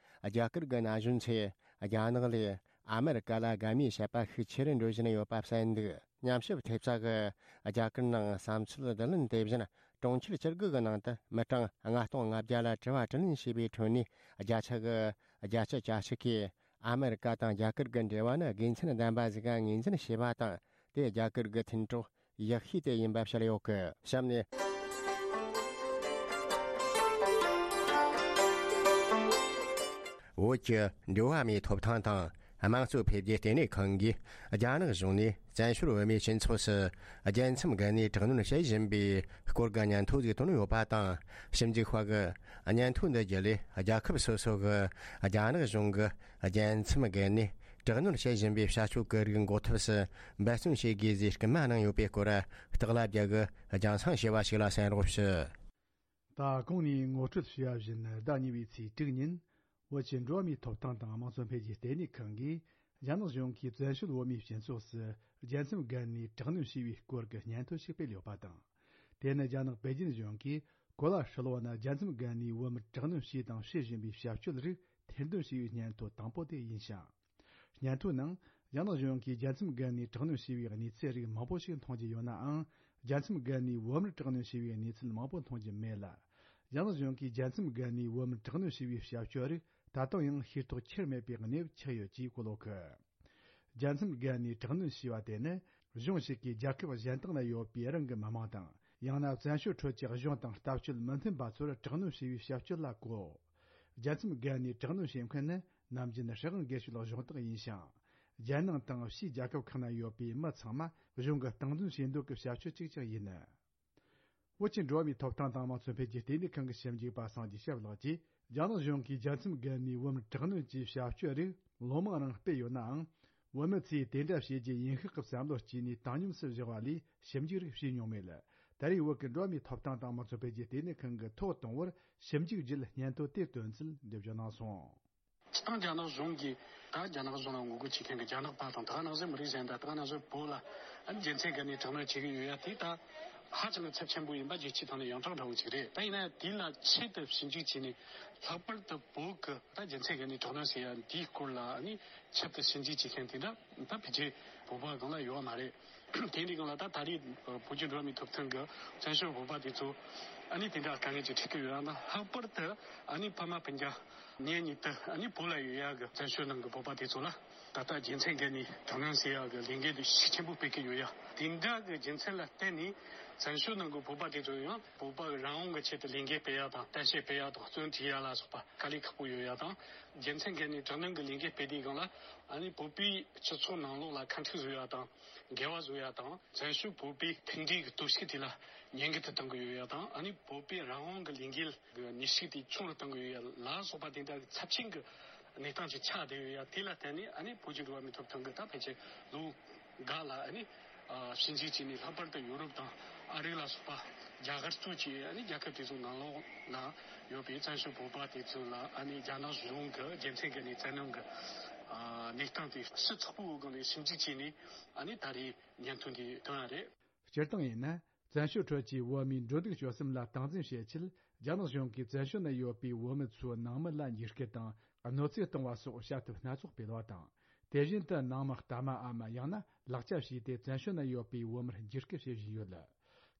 རྒྱ་གར་གྱི་ན་གཞོན་ཚོས་རྒྱ་ནག་ལས་ཨ་མེ་རི་ཀ་ལ་དགའ་མོས་བྱེད་པ་ཤུགས་ཆེ་རུ་འགྲོ་བཞིན་ཡོད་པ་གསལ་འདུག། ཉམས་ཞིབ་ཐེབས་རྩ་གིས་རྒྱ་གར་ནང་བསམ་ཚུལ་བསྡུ་ལེན་དེ་བཞིན་གྲོང་ཁྱེར་བཅུ་དགུ་གི་ནང་དུ་མི་གྲངས་ལྔ་སྟོང་ལྔ་བརྒྱ་ལ་དྲི་བ་དྲིས་ལན་བྱས་པའི་ཁྲོད་ནས། བརྒྱ་ཆ་གི་བརྒྱད་ཅུ་གྱ་གཅིག་གིས་ཨ་མེ་རི་ཀ་དང་རྒྱ་གར་གྱི་འབྲེལ་བ་ནི་དགེ་མཚན་ལྡན་པ་ཞིག་ངོས་འཛིན་བྱས་པ་དང་། དེས་རྒྱ་གར་གྱི་མཐུན་གྲོགས་ཡག་ཤོས་དེ་ཡིན་པ་བཤད་ཡོད་གི། གཤམ་ནས། བོད་ཀྱི་འགྲོ་བ་མིའི་ཐོབ་ཐང་དང་དམངས་གཙོ་འཕེལ་རྒྱས་ལྟེ་གནས་ཁང་གིས་རྒྱ་ནག་གཞུང་ནས་བཙན་བྱོལ་བོད་མིའི་སྤྱི་ཚོགས་སུ་རྒྱལ་མཚམས་བརྒལ་ནས་དྲག་གནོན་བྱེད་བཞིན་པའི་སྐོར་གྱི་སྙན་ཐོ་ཞིག་བཏོན་ཡོད་པ་དང་། ཞིབ་འཇུག་པ་གིས་སྙན་ཐོ་འདི་བརྒྱུད་ལས་རྒྱལ་ཁབ་སོ་སོ་གིས་རྒྱ་ནག་གཞུང་གིས་རྒྱལ་མཚམས་བརྒལ་ནས་དྲག་གནོན་བྱེད་བཞིན་པའི་བྱ་སྤྱོད་ཀྱི་རིགས་འགོག་ཐབས་སུ་འབད་བརྩོན་བྱེད་དགོས་ཞེས་སྐུལ་མ་གནང་ཡོད་པའི་སྐོར། སྟག་ལྷ་རྒྱལ་གྱིས་རྒྱང་སྲིང་ཞུས་པ་ཞིག་ལ་གསན་རོགས་ཞུ། ད་གོང་ནས་ངོ་སྤྲོད་ཞུས་པ་བཞིན། ཟླ་གཉིས་པའི་ཚེས་དྲུག་ཉིན། བོད་ཀྱི་འགྲོ་བ་མིའི་ཐོབ་ཐང་དང་དམངས་གཙོ་འཕེལ་རྒྱས་ལྟེ་གནས་ཁང་གིས། རྒྱ་ནག་གཞུང་གིས་བཙན་བྱོལ་བོད་མིའི་སྤྱི་ཚོགས་སུ། རྒྱལ་མཚམས་བརྒལ་ནས་དྲག་གནོན་བྱས་པའི་སྐོར་གྱི་སྙན་ཐོ་ཞིག་སྤེལ་ཡོད་པ་དང་། དེ་ནི་རྒྱ་ནག་པེ་ཅིན་གཞུང་གིས། གོ་ལ་ཧྲིལ་བོ་ན་རྒྱལ་མཚམས་བརྒལ་ནས་བོད་མིར་དྲག་གནོན་བྱས་དང་བྱེད་བཞིན་པའི་བྱ་སྤྱོད་རིགས་ཐེར་འདོན་བྱས་པའི་སྙན་ཐོ་དང་པོ་དེ་ཡིན་ཞིང་། སྙན་ཐོའི་ནང་། རྒྱ་ནག་གཞུང་གིས་རྒྱལ་མཚམས་བརྒལ་ནས་དྲག་གནོན་བྱས་པའི་གནས་ཚུལ་རིགས་མང་པོ་ཞིག་མཐོང་རྒྱུ་ཡོད་ནའང་། རྒྱལ་མཚམས་བརྒལ་ནས་བོད་མིར་དྲག་གནོན་བྱས་པའི་གནས་ཚུལ་མང་པོ་མཐོང་རྒྱུ་མེད་ལ། རྒྱ་ནག་གཞུང་གིས་རྒྱལ་མཚམས་བརྒལ་ནས་བོད་མིར་དྲག་གནོན་བྱས་པའི་བྱ་སྤྱོད་རིགས་ད་དུང་ཡང་ཤེས་རྟོགས་ཁྱེར་མེད་པའི་གནས་བབ་ཆགས་ཡོད་ཅེས་གོ་ལོག་གི། རྒྱལ་མཚམས་བརྒལ་ནས་དྲག་གནོན་བྱས་པ་དེ་ནི། གཞུང་ཞིག་གིས་རྒྱལ་ཁབ་གཞན་དག་ན་ཡོད་པའི་རང་གི་མི་མང་དང་། ཡང་ན་བཙན་བྱོལ་ཁྲོད་ཀྱི་གཞུང་དང་ལྟ་སྤྱོད་མི་མཐུན་པ་ཚོར་དྲག་གནོན་བྱས་པའི་བྱ་སྤྱོད་ལ་གོ། རྒྱལ་མཚམས་བརྒལ་ནས་དྲག་གནོན་བྱེད་མཁན་ནི་ནམ་རྒྱུན་སྲིད་དབང་སྒེར་གཅོད་གཞུང་དག་ཡིན་ཞིང་། རྒྱལ་ནང་དང་ཕྱིའི་རྒྱལ་ཁབ་ཁག་ན་ཡོད་པའི་མི་ཚང་མ་གཞུང་གིས་སྟངས་འཛིན་བྱེད་འདོད་ཀྱི་བྱ་སྤྱོད་ཅིག་ཀྱང་ཡིན། བོད་ཀྱི་འགྲོ་བ་མིའི་ཐོབ་ཐང་དང་དམངས་གཙོ་འཕེལ་རྒྱས་ལྟེ་གནས་ཁང་གི་ཞིབ་འཇུག་པ་སངས་རྒྱས་སྐྱབས་ལགས་ཀྱིས། རྒྱ་ནག་གཞུང་གིས་རྒྱལ་མཚམས་བརྒལ་ནས་བོད་མིར་དྲག་གནོན་གྱི་བྱ་སྤྱོད་རིགས་ལོ་མང་རིང་སྤེལ་ཡོད་ནའང་། བོད་མི་ཚོས་དེ་འདྲ་བྱེད་རྒྱུ་ཡིན་ཤག་གི་བསམ་བློ་སྐྱེས་ནས་བཏང་སྙོམས་སུ་བཞག་པ་ལས་ཞིབ་འཇུག་རིགས་བྱས་མྱོང་མེད་ལ། ད་རེས་བོད་ཀྱི་འགྲོ་བ་མིའི་ཐོབ་ཐང་དང་དམངས་གཙོ་འཕེལ་རྒྱས་ལྟེ་གནས་ཁང་གིས་ཐོག་དང་པོར་ཞིབ་འཇུག་བརྒྱུད་སྙན་ཐོ་དེ་བཏོན་ཚུལ་འགྲེལ་བརྗོད་གནང་སོང་། སྤྱིར་བཏང་རྒྱ་ནག་གཞུང་གིས་ད་རྒྱ་ནག་གཞུང་ལ་ངོ་རྒོལ་བྱེད་མཁན་གྱི་རྒྱ་ནག་པ་དང་། ད་ག་ནང་བཞིན་མི་རིགས་གཞན་དང་། ད་ག་ནང་བཞིན་བོད་ལ་རྒྱལ་མཚམས་བརྒལ་ནས་དྲག་གནོན་བྱེད་ཀྱི་ཡོད་ཡ་དེ་ད་ཧ་ཅང་གི་ཚབས་ཆེན་པོ་ཡིན་པ་རྒྱལ་སྤྱིའི་ཐོག་ནས་ཡོངས་གྲགས་འདྲ་བོ་ཅིག་རེད། ད་ཡིན་ན་དེ་ལ་ཆེད་དུ་ཞིབ་འཇུག་བྱས་ནས། ལྷག་པར་དུ་བོད་ཀྱི་ད་རྒྱལ་མཚམས་བརྒལ་ནས་དྲག་གནོན་ཟེར་ཡ་འདིའི་སྐོར་ལ་ནི་ཆེད་དུ་ཞིབ་འཇུག་བྱེད་མཁན་དེ་འདྲ་ད་ཕལ་ཆེར་བོད་པ་སྒང་ལ་ཡོད་མ་རེད། དེ་འདྲའི་སྒང་ལ་ད་ད་རེས་བོད་ཀྱི་འགྲོ་བ་མིའི་ཐོབ་ཐང་གི་བཙན་བྱོལ་བོད་པ་དེ་ཚོ་ཨ་ནི་དེ་འདྲ་དཀའ་ངལ་ཅིག་འཕྲད་ཀྱི་ཡོད་ཡ་དང་། ལྷག་པར་དུ་ཨ་ནི་ཕ་མ་སྤུན་ཀྱག་གཉེན་ཉེ་དུ་ཨ་ནི་བོད་ལ་ཡོད་ཡ་གི་བཙན་བྱོལ་ནང་གི་བོད་པ་དེ་ཚོ་ལ་ད་ལྟ་རྒྱལ་མཚམས་བརྒལ་ནས་དྲག་གནོན་ཟེར་ཡ་གི་ལས་འགུལ་དེ་ཤུགས་ཆེན་པོ་སྤེལ་གྱི་ཡོད་ཡ། དེ་འདྲ་གི་རྒྱུ་མཚན་ལ་བརྟེན་ནས་བཙན་བྱོལ་ནང་གི་བོད་པ་དེ་ཚོ་ཡང་བོད་པ་རང་དབང་གི་ཆེད་དུ་ལས་འགུལ་སྤེལ་ཡ་དང་། གཏམ་བཤད་སྤེལ་ཡ་དང་། བཙོན་ཁྲིད་ཡ་ལ་སོགས་པ་དཀའ་ལས་ཁག་པོ་ཡོད་ཡ་དང་། རྒྱལ་མཚམས་བརྒལ་ནས་དྲག་གནོན་གྱི་ལས་འགུལ་སྤེལ་དུས་སྒང་ལ་ཨ་ནི་བོད་པའི་སྤྱི་ཚོགས་ནང་ལོགས་ལ་ཁ་འཕྲིག་བཟོ་ཡ་དང་། འགལ་བ་བཟོ་ཡ་དང་། བཙན་བྱོལ་བོད་པའི་མཐུན་སྒྲིལ་གྱི་སྟོབས་ཤུགས་དེ་ལ་ཉེན་ཁ་དུ་གཏོང་གི་ཡོད་ཡ་དང་། ཨ་ནི་བོད་པའི་རང་དབང་གི་ལས་འགུལ་གྱི་ནུས་ཤུགས་དེ་ཆུང་རུ་གཏོང་གི་ཡོད་ཡ་ལ་སོགས་པ་དེ་འདྲ་གི་ཚབས་ཆེན་གྱི་གནས་སྟངས་ཅིག་ཆགས་བསྡད་ཡོད་ཡ། དེ་ལ་བརྟེན་ནས་ཨ་ནི་བོད་ཀྱི་འགྲོ་བ་མིའི་ཐོབ་ཐང་གི་ད་ཕལ་ཆེར་ལོ་འགའ་ལ་ཨ་ནི་ཨ་ཞིབ་འཇུག་བྱས་ནས། ལྷག་པར་དུ་ཡོ་རོབ་དང་ཨ་རི་ལ་སོགས་པ་རྒྱ་གར་གཙོས་ཀྱི་ཨ་ནི་རྒྱལ་ཁབ་དེ་ཚོའི་ནང་ལོགས་ལ་ཡོད་པའི་བཙན་བྱོལ་བོད་པ་དེ་ཚོ་ལ་ཨ་ནི་རྒྱ་ནག་གཞུང་གི་རྒྱལ་མཚམས་བརྒལ་ནས་བཙན་གནོན་གྱི་ཨ་གནས་སྟངས་དེ་ཞིབ་ཚགས་པོའི་སྒང་ནས་ཞིབ་འཇུག་བྱས་ནས་ཨ་ནི་ད་རེས་སྙན་ཐོ་འདི་བཏོན་པ་རེད། སྤྱིར་བཏང་ཡིན་ན། བཙན་བྱོལ་ཁྲོད་ཀྱི་བོད་མིའི་འགྲོ་འདུག་སྤྱོད་གསུམ་ལ་སྟངས་འཛིན་བྱེད་ཆེད། རྒྱ་ནག་གཞུང་གིས་བཙན་བྱོལ་ན་ཡོད་པའི་བོད་མི་ཚོའི་ནང་མི་ལ་འཇིགས་སྐུལ་དང་གནོད་འཚེ་གཏོང་བ་སོགས་བྱ་ཐབས་སྣ་ཚོགས་སྤེལ་བ་དང་། དེ་བཞིན་དུ་ནང་མི་རྟ་མ་འམ་ཡང་ན་ལག་ཆ་བྱས་ཏེ་བཙན་བྱོལ་ན་ཡོད་པའི་བོད་མིར་འཇིགས་སྐུལ་བྱེད་བཞིན་ཡོད།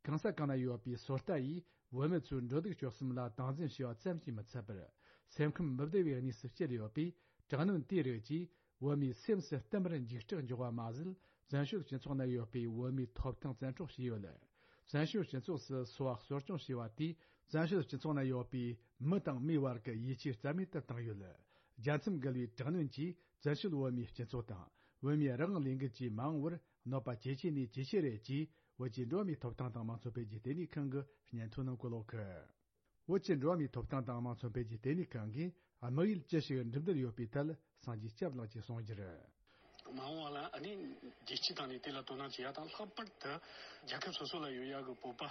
གང་ས་གང་ན་ཡོད་པའི་སོ་ལྟ་ཡིས་བོད་མི་ཚོའི་འགྲོ་འདུག་སྤྱོད་གསུམ་ལ་སྟངས་འཛིན་བྱས་པ་ཙམ་གྱིས་མི་ཚད་པར། སེམས་ཁམས་མི་བདེ་བའི་གནས་སུ་བསྐྱལ་ཡོད་པས། དྲག་གནོན་དེའི་རིགས་ཀྱིས་བོད་མིའི་སེམས་སུ་བསྟན་པར་འཇིགས་སྐྲག་འཇོག་པ་མ་ཟད། བཙན་བྱོལ་སྤྱི་ཚོགས་ན་ཡོད་པའི་བོད་མིའི་ཐོབ་ཐང་བཙན་འཕྲོག་བྱས་ཡོད། བཙན་བྱོལ་སྤྱི་ཚོགས་སུ་འཚོ་བ་གསོ་སྐྱོང་བྱས་པ་དེས། བཙན་བྱོལ་སྤྱི་ཚོགས་ན་ཡོད་པའི་མི་དང་མིའི་བར་གྱི་ཡིད་ཆེས་རྩ་མེད་དུ་བཏང་ཡོད། རྒྱལ་མཚམས་བརྒལ་བའི་དྲག་གནོན་གྱིས་བཙན་བྱོལ་བོད་མིའི་སྤྱི་ཚོགས་དང་། བོད་མིའི་རང་དབང་ལས་འགུལ་གྱི་མ་འོངས་པར་གནོད་པ་ཇེ་ཆེ་ནས་ཇེ་ཆེ་རེད་ཅེས། བོད་ཀྱི་འགྲོ་བ་མིའི་ཐོབ་ཐང་དང་དམངས་གཙོ་འཕེལ་རྒྱས་ལྟེ་གནས་ཁང་གི་སྙན་ཐོ་ནང་བཀོད་ཡོད། བོད་ཀྱི་འགྲོ་བ་མིའི་ཐོབ་ཐང་དང་དམངས་གཙོ་འཕེལ་རྒྱས་ལྟེ་གནས་ཁང་གིས། དམིགས་ཡུལ་ཅི་ཞིག་འགྲུབ་འདོད་ཡོད་པའི་ཐད། སངས་རྒྱས་སྐྱབས་ལགས་ཀྱིས་གསུངས་རྒྱུར། མ་འོངས་པ་ལ་ཨ་ནི་རྒྱལ་སྤྱི་དང་ནི་དེ་ལ་དོ་སྣང་བྱེད་ཡ་དང་། ལྷག་པར་དུ་རྒྱལ་ཁབ་སོ་སོ་ལ་ཡོད་ཡ་གི་བོད་པ་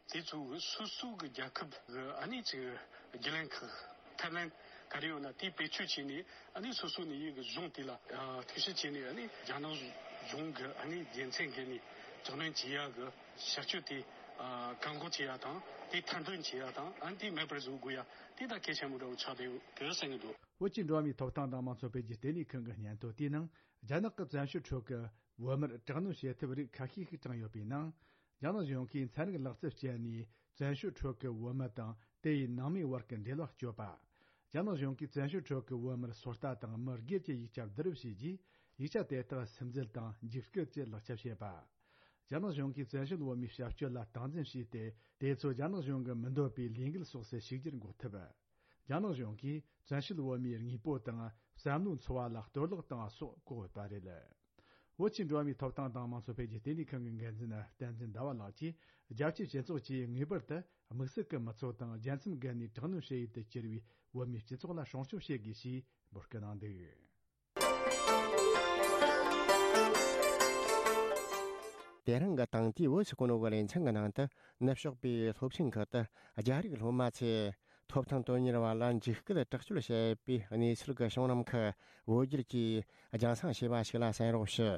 དེ་ཚོ་གི་སོ་སོ་གི་རྒྱལ་ཁབ་གི་ཨ་ནི་ཅིག་རྒྱུན་ལས་ཁག་ཐབས་ལམ་ག་རེ་ཡོད་ན་དེ་བེད་སྤྱོད་བྱས་ནས། ཨ་ནི་སོ་སོ་ནས་ཡི་གི་གཞུང་དེ་ལ་ཨ་ཐུགས་ཞིབ་བྱས་ནས། ཨ་ནི་རྒྱ་ནག་གཞུང་གི་ཨ་ནི་རྒྱལ་མཚམས་བརྒལ་ནས་དྲག་གནོན་བྱེད་ཡ་གི་བྱ་སྤྱོད་དེ་ཨ་བཀག་འགོག་བྱེད་ཡ་དང་། དེ་མཐའ་འདོན་བྱེད་ཡ་དང་། ཨ་ནི་དེ་མེད་པར་བཟོ་དགོས་ཡ་དེ་ད་གལ་ཆེན་པོ་འདྲ་བོ་ཆགས་བསྡད་ཡོད་གི་བསམ་གི་འདུག། བོད་ཀྱི་འགྲོ་བ་མིའི་ཐོབ་ཐང་དང་དམངས་གཙོ་འཕེལ་རྒྱས་ལྟེ་གནས་ཁང་གི་སྙན་ཐོ་དེའི་ནང་། རྒྱ་ནག་གི་བཙན་བྱོལ་ཁྲོད་ཀྱི་བོད་མིར་དྲག་གནོན་བྱེད་ཐབས་རིགས་ཁ་ཤས་ཤིག་དྲངས་ཡོད་པའི་ནང་། རྒྱ་ནག་གཞུང་གིས་ཚན་རིག་ལག་རྩལ་སྤྱད་ནས་བཙན་བྱོལ་ཁྲོད་ཀྱི་བོད་མི་དང་དེ་ཡི་ནང་མིའི་བར་གྱི་འབྲེལ་བ་གཅོད་པ། རྒྱ་ནག་གཞུང་གིས་བཙན་བྱོལ་ཁྲོད་ཀྱི་བོད་མིར་སོ་ལྟ་དང་མི་སྒེར་གྱི་ཡིག་ཆ་བསྡུ་རུབ་བྱས་རྗེས། ཡིག་ཆ་དེ་དག་སིམ་འཛུལ་དང་འཇིགས་སྐུལ་གྱི་ལག་ཆ་བྱེད་པ། རྒྱ་ནག་གཞུང་གིས་བཙན་བྱོལ་བོད་མིའི་བྱ་སྤྱོད་ལ་སྟངས་འཛིན་བྱས་ཏེ། དེ་ཚོ་རྒྱ་ནག་གཞུང་གི་མི་འདོད་པའི་ལས་འགུལ་སོགས་སུ་ཞུགས་རྒྱུར་འགོག་ཐབས། རྒྱ་ནག་གཞུང་གིས་བཙན་བྱོལ་བོད་མིའི་དངོས་པོ་དང་བསམ་བློའི་འཚོ་བ་ལ་གཏོར་བརླག་བཏང་བ་སོགས་བཀག་ཡོད་པ་རེད། བོད་ཀྱི་འགྲོ་བ་མིའི་ཐོབ་ཐང་དང་དམངས་གཙོ་འཕེལ་རྒྱས་ལྟེ་གནས་ཁང་གི་འགན་འཛིན་བསྟན་འཛིན་ཟླ་བ་ལགས་ཀྱིས། རྒྱལ་སྤྱིའི་སྤྱི་ཚོགས་ཀྱིས་ངེས་པར་དུ་དམིགས་བསལ་གྱི་མི་ཚོགས་དང་རྒྱལ་མཚམས་བརྒལ་ནས་དྲག་གནོན་བྱེད་ཡུལ་དུ་གྱུར་བའི་བོད་མིའི་སྤྱི་ཚོགས་ལ་སྲུང་སྐྱོབ་བྱེད་དགོས་ཞེས་འབོད་སྐུལ་གནང་འདུག། དེ་རིང་གི་དེང་དུས་བོད་ཀྱི་གོ་ནོ་གི་ལེ་ཚན་གྱི་ནང་དུ། ནུབ་ཕྱོགས་པའི་སློབ་ཆེན་ཁག་ཏུ་རྒྱ་རིགས་སློབ་མ་ཚོས་ ཐོབ་ཐང་དོན་གཉེར་བ་ལ་འཇིགས་སྐུལ་དྲག་སྤྱོད་བྱས་པའི་གནས་ཚུལ་གྱི་བྱུང་རིམ་ཁག་བོད་བསྒྱུར་གྱིས་རྒྱང་སྲིང་བྱས་པ་ཞིག་ལ་གསན་རོགས་ཞུ།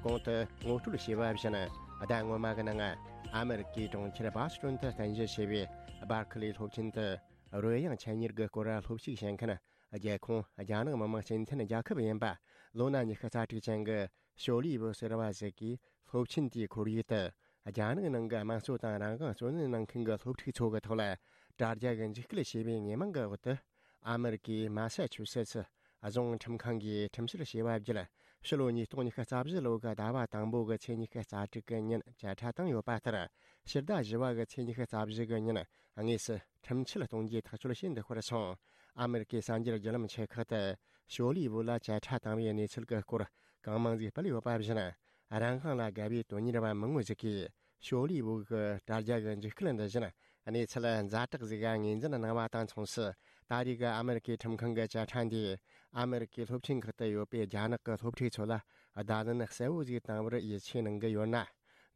གོང་དུ་ངོ་སྤྲོད་བྱས་པ་བཞིན། ཟླ་སྔོན་མ་གི་ནང་ཨ་མེ་རི་ཀའི་གྲོང་ཁྱེར་སྦ་སི་ཏོན་དུ་རྟེན་གཞི་བྱས་པའི་སྦར་ཁི་ལི་སློབ་ཆེན་དུ། རོལ་དབྱངས་འཕྲིན་ཡིག་གི་སྐོར་སློབ་ཞུགས་བྱེད་མཁན་རྒྱལ་ཁོངས་རྒྱ་ནག་མི་དམངས་སྤྱི་མཐུན་རྒྱལ་ཁབ་ཡིན་པ་ལོ་ན་ཉི་ཤུ་རྩ་དྲུག་ཅན་གྱི་ཞོ་ལི་ཝུ་ཟེར་བ་ཞིག་གིས། སློབ་ཆེན་དེའི་ཁོར་ཡུག་ཏུ་རྒྱ་ནག་ནང་གི་དམངས་གཙོ་དང་རང་དབང་བརྩོན་ལེན་གནང་མཁན་གྱི་སློབ་ཕྲུག་ཚོ་གི་ཐོག་ལ་དྲ་རྒྱ་གི་འཇིགས་སྐུལ་བྱས་པའི་ཉེས་མིང་གི་འོག་ཏུ། ཨ་མེ་རི་ཀའི་མ་ས་ཆུ་སེ་ཚི་རྫོང་ཁྲིམས་ཁང་གིས་ཁྲིམས་བཤེར་བྱས་པ་བརྒྱུད། ཕྱི་ལོ་ཉིས་སྟོང་ཉི་ཤུ་རྩ་བཞི་ལོ་གི་ཟླ་བ་དང་པོ་གི་ཚེས་ཉི་ཤུ་རྩ་དྲུག་གི་ཉིན་བཅད་ཁྲ་བཏང་ཡོད་པ་ལྟར། ཕྱི་ཟླ་བཞི་བ་གི་ཚེས་ཉི་ཤུ་རྩ་བཞི་གི་ཉིན་དངོས་སུ་ཁྲིམས་ཆད་གཏོང་རྒྱུའི་ཐག་གཅོད་བྱས་འདུག་པར་སོང་། ཨ་མེ་རི་ཀའི་གསར་འགྱུར་བརྒྱུད་ལམ་ཆེ་ཁག་ཏུ་ཞོ་ལི་ཝུ་ལ་བཅད་ཁྲ་བཏང་བའི་གནས་ཚུལ་གྱི་སྐོར་གང་མང་ཞིག་སྤེལ་ཡོད་པ་བཞིན། རང་དབང་ལ་དགའ་བའི་དོན་གཉེར་བ་མང་བོ་ཞིག་གིས་ཞོ་ལི་ཝུ་གི་དྲ་རྒྱ་གི་འཇིགས་སྐུལ་འདི་བཞིན་གནས་ཚུལ་ཛ་དྲག་ཞིག་ངོས་འཛིན་གནང་བ་དང་མཚུངས་སུ། ད་རེས་ཀྱི་ཨ་མེ་རི་ཀའི་ཁྲིམས་ཁང་གི་བཅད་ཁྲ་འདིས་ཨ་མེ་རི་ཀའི་སློབ་ཆེན་ཁག་ཏུ་ཡོད་པའི་རྒྱ་ནག་གི་སློབ་ཕྲུག་ཚོ་ལ་བརྡ་ལན་གསལ་བོ་ཞིག་བཏང་བར་ཡིད་ཆེས་གནང་གི་ཡོད་ན།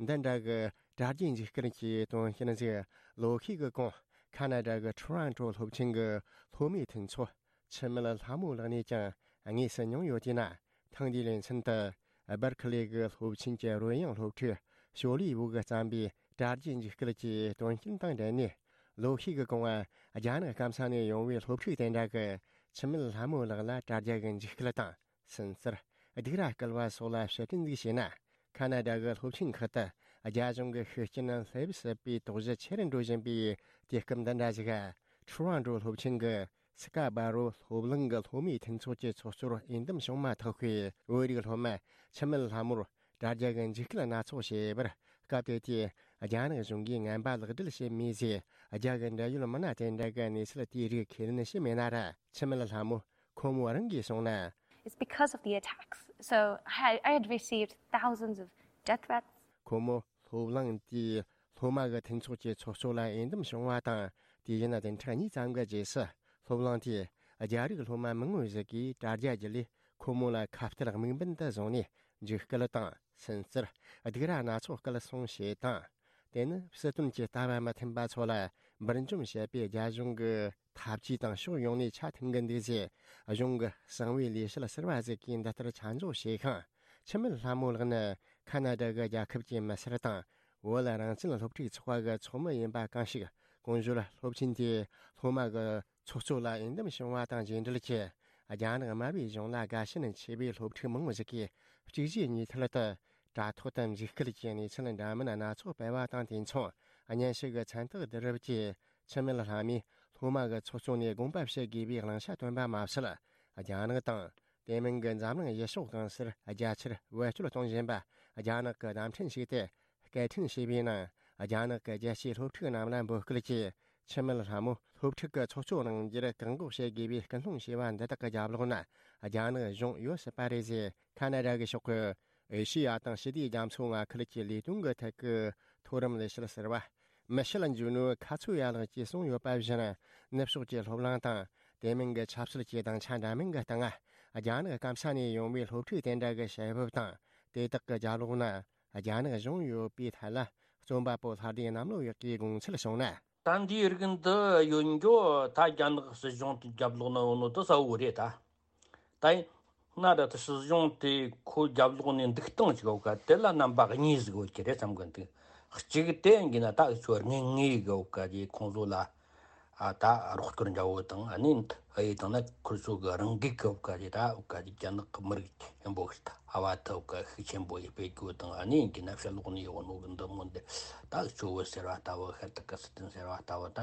འདི་འདྲ་གི་དྲ་རྒྱའི་འཇིགས་སྐུལ་གྱི་དོན་རྐྱེན་ཞིག་ལོ་ཤས་ཀྱི་གོང་ཁ་ན་ཌ་གི་ཊོ་རོན་ཊོ་སློབ་ཆེན་གྱི་སློབ་མའི་མཐུན་ཚོགས་འཆི་མེད་ལྷ་མོ་ལགས་ནས་ཀྱང་དངོས་སུ་མྱོང་ཡོད་དེས་ན། ཐེངས་འདིའི་ལེ་ཚན་དུ་སྦར་ཁི་ལི་གི་སློབ་ཆེན་གྱི་རོལ་དབྱངས་སློབ་ཕྲུག་ཞོ་ལི་ཝུ་གིས་བརྩམས་པའི་དྲ་རྒྱའི་འཇིགས་སྐུལ་གྱི་དོན་རྐྱེན་དང་འབྲེལ་ནས། ལོ་ཤས་ཀྱི་གོང་རྒྱ་ནག་སྐམ་ས་ནས་ཡོང་བའི་སློབ་ཕྲུག་དེ་འདྲ་གིས་འཆི་མེད་ལྷ་མོ་ལགས་ལ་དྲ་རྒྱ་གི་འཇིགས་སྐུལ་དང་། སུན་གཙེར། སྡིགས་ར་སྐུལ་བ་སོགས་ལ་ཕྱིར་དྲན་ཞིག་བྱས་ན། ཁ་ན་ཌ་གི་སློབ་ཆེན་ཁག་ཏུ་རྒྱ་གཞུང་གི་ཤུགས་རྐྱེན་སླེབས་སྲིད་པའི་དོགས་གཞི་ཆེ་རུ་འགྲོ་བཞིན་པའི་དུས་སྐབས་འདི་འདྲ་ཞིག་ཊོ་རོན་ཊོ་སློབ་ཆེན་གྱི་སི་ཀ་བྷ་རོ་སློབ་གླིང་གི་སློབ་མའི་མཐུན་ཚོགས་ཀྱི་ཚོགས་གཙོར་འོས་འདེམས་བྱུང་མ་ཐག་པའི་བོད་རིགས་སློབ་མ་འཆི་མེད་ལྷ་མོར་དྲ་རྒྱ་གི་འཇིགས་སྐུལ་སྣ་ཚོགས་བྱས་པར། སྐབས་དེ་དུས་རྒྱ་ནག་གཞུང་གིས་ངན་པ་ལག་སྦྲེལ་བྱས་མེད་ཅེས་རྒྱ་གི་འབྲེལ་ཡོད་མི་སྣ་དེ་འདྲ་གིས་གནས་ཚུལ་དེའི་རིགས་ཁས་ལེན་བྱས་མེད་ན་ར། འཆི་མེད་ལྷ་མོ་ཁོ་མོ་རང་གིས་གསུངས་ན། It's because of the attacks. So I had, I had received thousands of death threats. ཁོ་མོ་སློབ་གླིང་དེའི་སློབ་མ་གི་མཐུན་ཚོགས་ཀྱི་ཚོགས་གཙོ་ལ་འོས་འདེམས་བྱུང་བ་དང་། དུས་ཡུན་བདུན་ཕྲག་གཉིས་ཙམ་གྱི་རྗེས་སུ་སློབ་གླིང་དེས་རྒྱ་རིགས་སློབ་མ་མང་བོ་ཞིག་གིས་དྲ་རྒྱ་བརྒྱུད་ལས་ཁོ་མོ་ལ་ཁ་གཏད་དམིགས་འབེན་དུ་བཟུང་ནས་འཇིགས་སྐུལ་དང་སུན་གཙེར། སྡིགས་ར་སྣ་ཚོགས་སྐུལ་སློང་བྱས་དང་། དེ་ནི་སྲིད་དོན་གྱི་ལྟ་བ་མི་མཐུན་པ་ཚོ་ལ་འབུར་འཇོམས་བྱེད་པའི་རྒྱ་གཞུང་གི་འཐབ་ཇུས་དང་ཕྱོགས་ཡོངས་ནས་ཆ་མཐུན་གྱི་འདུག་ཅེས་གཞུང་གི་གསང་བའི་ལས་བྱེད་ཟུར་པ་ཞིག་གིས་འདི་ལྟར་ཆ་འཇོག་བྱས་ཤིང་། འཆི་མེད་ལྷ་མོ་ལགས་ནི་ཁ་ན་ཌ་གི་རྒྱལ་ཁབ་ཀྱི་མི་སེར་དང་བོད་རང་བཙན་སློབ་ཕྲུག་ཚོགས་པ་གི་ཚོགས་མི་ཡིན་པ་གང་ཞིག་གོང་ཞུས་སློབ་ཆེན་དེའི་སློབ་མ་གི་ཚོགས་གཙོ་ལ་འོས་འདེམས་བྱུང་བ་དང་རྗེས་འབྲེལ་གྱིས། རྒྱ་ནག་དམར་པོའི་གཞུང་ལ་དགའ་ཞེན་ཆེ་བའི་སློབ་ཕྲུག་མང་བོ་ཞིག་གིས་གཅིག་རྗེས་གཉིས་མཐུད་དུ་དྲ་ཐོག་ཏུ་འཇིགས་སྐུལ་གྱི་གནས་ཚུལ་འདྲ་མིན་སྣ་ཚོགས་སྤེལ་བ་དང་། དུས་མཚུངས་བརྙན་ཤོག་གི་མཚན་རྟགས་བསྡུ་རུབ་ཀྱིས་འཆི་མེད་ལྷ་མོས་སློབ་མ་གི་ཚོགས་གཙོ་ནས་དགོངས་པ་བཞེས་དགོས་པའི་གླེང་བྱ་བཏོན་པ་མ་ཟད། རྒྱ་ནག་དང་དེ་མིན་གྱི་འཛམ་གླིང་ཡུལ་ཕྱོགས་གང་སར་རྒྱ་ཆེར་བེད་སྤྱོད་གཏོང་བཞིན་པ་རྒྱ་ནག་གི་བརྡ་འཕྲིན་ཞིག་སྟེ། སྐད་འཕྲིན་ཞེས་པའི་ནང་རྒྱ་ནག་གི་རྒྱལ་སྤྱིའི་སློབ་ཕྲུག་རྣམས་ལ་འབོད་སྐུལ་གྱིས། འཆི་མེད་ལྷ་མོ་སློབ་ཕྲུག་གི་ཚོགས་གཙོ་གནང་རྒྱུར་བཀག་འགོག་བྱེད་དགོས་པའི་སྐུལ་སློང་བྱས་པ་འདི་དག་གི་རྒྱབ་ལོགས་ན་རྒྱ་ནག་གཞུང་ཡོད་སྲིད་པ་རེད་ཅེས་ཁ་ན་ཌ་གི་ཕྱོགས་ཀྱི་ཨེ་ཤེ་ཡ་དང་ཞི་བདེའི་རྒྱ་མཚོ་མངའ་ཁུལ་གྱི་ལས་དོན་གྱི་ཐད་ཀྱི་མཐོ་རིམ་ལས་བྱེད་ཟུར་པ་མི་ཤེལ་འཇུ་ནུ་ཁ་ཚུ་ཡ་ལགས་ཀྱིས་གསུངས་ཡོད་པ་བཞིན། ནུབ་ཕྱོགས་ཀྱི་སློབ་གླིང་དང་དེ་མིན་གྱི་ཆབ་སྲིད་ཀྱི་སྡིངས་ཆ་འདྲ་མིན་གྱི་སྟེང་རྒྱ་ནག་སྐམ་ས་ནས་ཡོང་བའི་སློབ་ཕྲུག་དེ་འདྲ་གི་བྱེད་ཕོད་དང་། དེ་དག་གི་རྒྱབ་ལོགས་ན་རྒྱ་ནག་གཞུང་ཡོད་པའི་ཐད་ལ་རྩོམ་པ་པོ་ལྷ་ལྡན་གནམ་ལོ་ཡག་གིས་དགོངས་ཚུལ་བྱུང་ན། ད་འདིའི་རིགས་འདི་ཡོད་འགྱོ་ད་རྒྱ་ནག་སྲིད་གཞུང་གི་རྒྱབ་ལོགས་ན་ཡོད་ནོ་དེ་གསལ་བོ་རེད་ད། ད་ཡིན་ན་ད་ལྟ་སྲིད་གཞུང་དེ་ཁོ་རྒྱབ་ལོགས་ནས་འདུག་སྟངས་ཅིག་ཡོད་ཀ་དེ་ལ་རྣམ་པ་གཉིས་ཟིག་ཡོད་ཀྱི་རེད་བསམ་གི་འདུག་གཅིག་དེ་ཡིན་གྱི་ན་ད་འུ་ཚོ་དངོས་དངོས་གི་ཡོད་ཀ་དེ་ཁོང་ཚོ་ལ། ཨ་ད་རོགས་སྐྱོར་འདྲ་བོ་དང་ཨ་ནི་ཨ་ཡི་དང་ན་ཁུར་ཚོ་གི་རང་འགུལ་གི་བཀའ་རྒྱ་ད་བཀའ་རྒྱ་རྒྱ་ནག་གི་མི་རིགས་ཆེན་པོ་ཞིག་ད་ཨ་བ་ད་བཀའ་ཤུགས་ཆེན་པོ་ཡི་སྤེལ་རྒྱུ་དང་ཨ་ནི་གི་ན་ཕྱི་ལོགས་ནས་ཡོང་ནོ་གི་འདི་མོ་འདི་ད་ཆུ་བོ་ཟེར་བ་ལྟ་བུ་ཤར་ཏི་ཀི་སི་ཐན་ཟེར་བ་ལྟ་བུ་ད་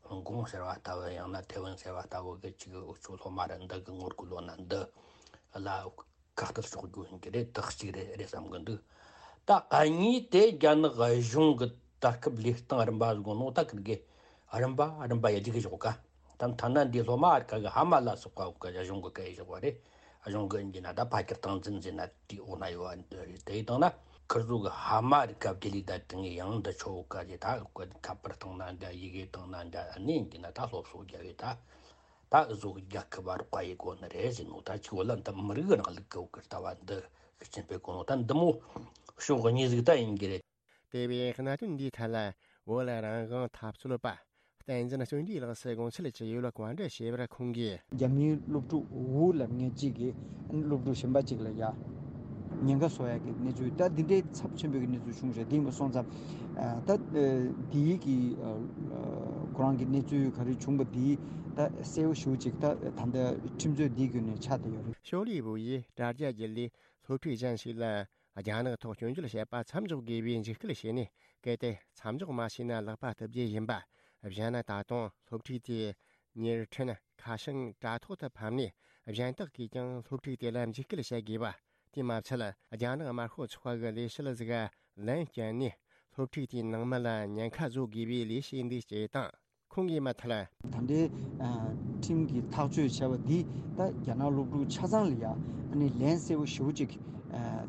ཧོང་ཀོང་ཟེར་བ་ལྟ་བུ་ཡང་ན་ཐེ་ཝན་ཟེར་བ་ལྟ་བུ་གི་ཅིག་འུ་ཚོ་སློབ་མ་ར་འདི་གི་ངོ་རྒོལ་ལོ་ན་འདི་ལ། ཁག་ཐེག་ཕྱོགས་རྒྱུ་ཡིན་གྱི་རེད། དག་གཅིག་རེད་རེད་བསམ་གི་འདུག་ད་གཉིས་དེ་རྒྱ་ནག་གཞུང་གི་ད་སྐབས་ལས་སྟངས་རིམ་པ་ཟིག་ནོ་ད་ཁིར་གི་རིམ་པ་རིམ་པ་ཡ་རྒྱུག་གི་ཞོག་ག་ད་ཐ་ན་འདི་སློབ་མ་ཨར་ཀ་གི་ཧ་མ་ལ་སོགས་པ་གི་གཞུང་གི་སྐད་ཞོག་པ་རེད། གཞུང་གི་འདི་ན་ད་ཕ་ཁྱར་སྟངས་འཛིན་ཟེར་ན་དེའི་འོག་ན་ཡོད་པ་འདི་རེད། དེ་ཡི་སྟེང་ན་ཁིར་ཚོ་གི་ཧ་མ་རི་ཀ་བརྒྱུད་ལས་ད་དེ་ངས་ཡང་འདི་ཆོ་ག་ཞེ་ད་ཁ་པར་སྟེང་ན་འདྲ་ཡི་གེ་སྟེང་ན་འདྲ་ཨ་ནི་འདི་ན་ད་སློབ་གསོ་རྒྱབ་ཡོད་ད། ད་བཟོ་རྒྱག་གི་བ་རོགས་ཡི་གོ་ནི་རེད་ཟེར་ནོ། ད་ཅིག་བོད་ལ་འདི་མི་རིགས་རིང་ལུགས་ཀྱི་འོག་གི་ལྟ་བ་འདི་ཤུགས་ཆེན་སྤེལ་གོ་ནོ། ད་འདི་མོ་ཕྱོགས་གཉིས་ཟིག་ད་ཡིན་གི་རེད། དེ་བས་གནད་དོན་འདིའི་ཐད་ལ་བོད་ལ་རང་དབང་འཐབ་རྩོད་པ་བསྟན་འཛིན་བརྩོན་འགྲུས་ལགས་སུ་དགོངས་འཆར་ཅིག་ཡོད་ལ་བཀའ་འདྲི་ཞུས་པར་ཁོང་གིས། རྒྱ་མིའི་སློབ་ཕྲུག་ཝུ་ལབ་མཁན་གཅིག་གིས་སློབ་ཕྲུག་གཞན་པ་གཅིག་ལ་ཡ་ཉེན་ཁ་བཟོ་ཡག་གི་གནས་ཚུལ། ད་འདི་འདྲའི་ཚབས་ཆེན་པོའི་གནས་ཚུལ་བྱུང་རེད། དེ་མ་སོང་ཙང་ད་འདིའི་གི་ཁོ་རང་གི་གནས་ཚུལ་ག་རེ་བྱུང་པ་འདི་ད་གསལ་བོ་ཞེ་པོ་ཅིག་ད་ད་ལྟ་ཁྲིམས་རྩོད་འདིའི་བརྒྱུད་ནས་ཆགས་བསྡད་ཡོད་རེད། ཤོ་ལི་ཝུ་ཡིས་དྲ་རྒྱ་བརྒྱུད་ལས་སློབ་ཕྲུག་གཞན་ཞིག་ལ་རྒྱ་ནག་ཐོག་སྐྱོན་བརྗོད་བྱེད་པ་མཚམས་འཇོག་དགོས་པའི་འཇིགས་སྐུལ་བྱས་ནས། གལ་ཏེ་མཚམས་འཇོག་མ་བྱས་ན་ལག་པ་བརྡབ་རྒྱུ་ཡིན་པ། གཞན་ན་ད་དུང་སློབ་ཕྲུག་དེ་ཉེར་འཕྲིན་ཁ་བྱང་དྲ་ཐོག་ཏུ་ཕབ་ནས་གཞན་དག་གིས་ཀྱང་སློབ་ཕྲུག་དེ་ལ་འཇིགས་སྐུལ་བྱེད་དགོས་པ། དེ་མ་ཚད་རྒྱ་ནག་དམར་ཤོག་ཚོགས་པ་གི་ལས་བྱེད་ཟིག་ལན་བསྐྱལ་ནས་སློབ་ཕྲུག་དེའི་ནང་མི་ལ་ཉེན་ཁ་བཟོ་དགོས་པའི་ལས་བྱེད་འདི་སྐྱེས་དང་། ཁོང་གིས་མ་མཐར། ད་ལྟའི་ཁྲིམས་ཀྱིས་ཐག་གཅོད་བྱས་པ་འདི་ད་རྒྱ་ནག་སློབ་ཕྲུག་ཆ་ཚང་ལ་ཡང་ཨ་ནི་ལན་གསལ་པོ་ཞེ་པོ་ཅིག་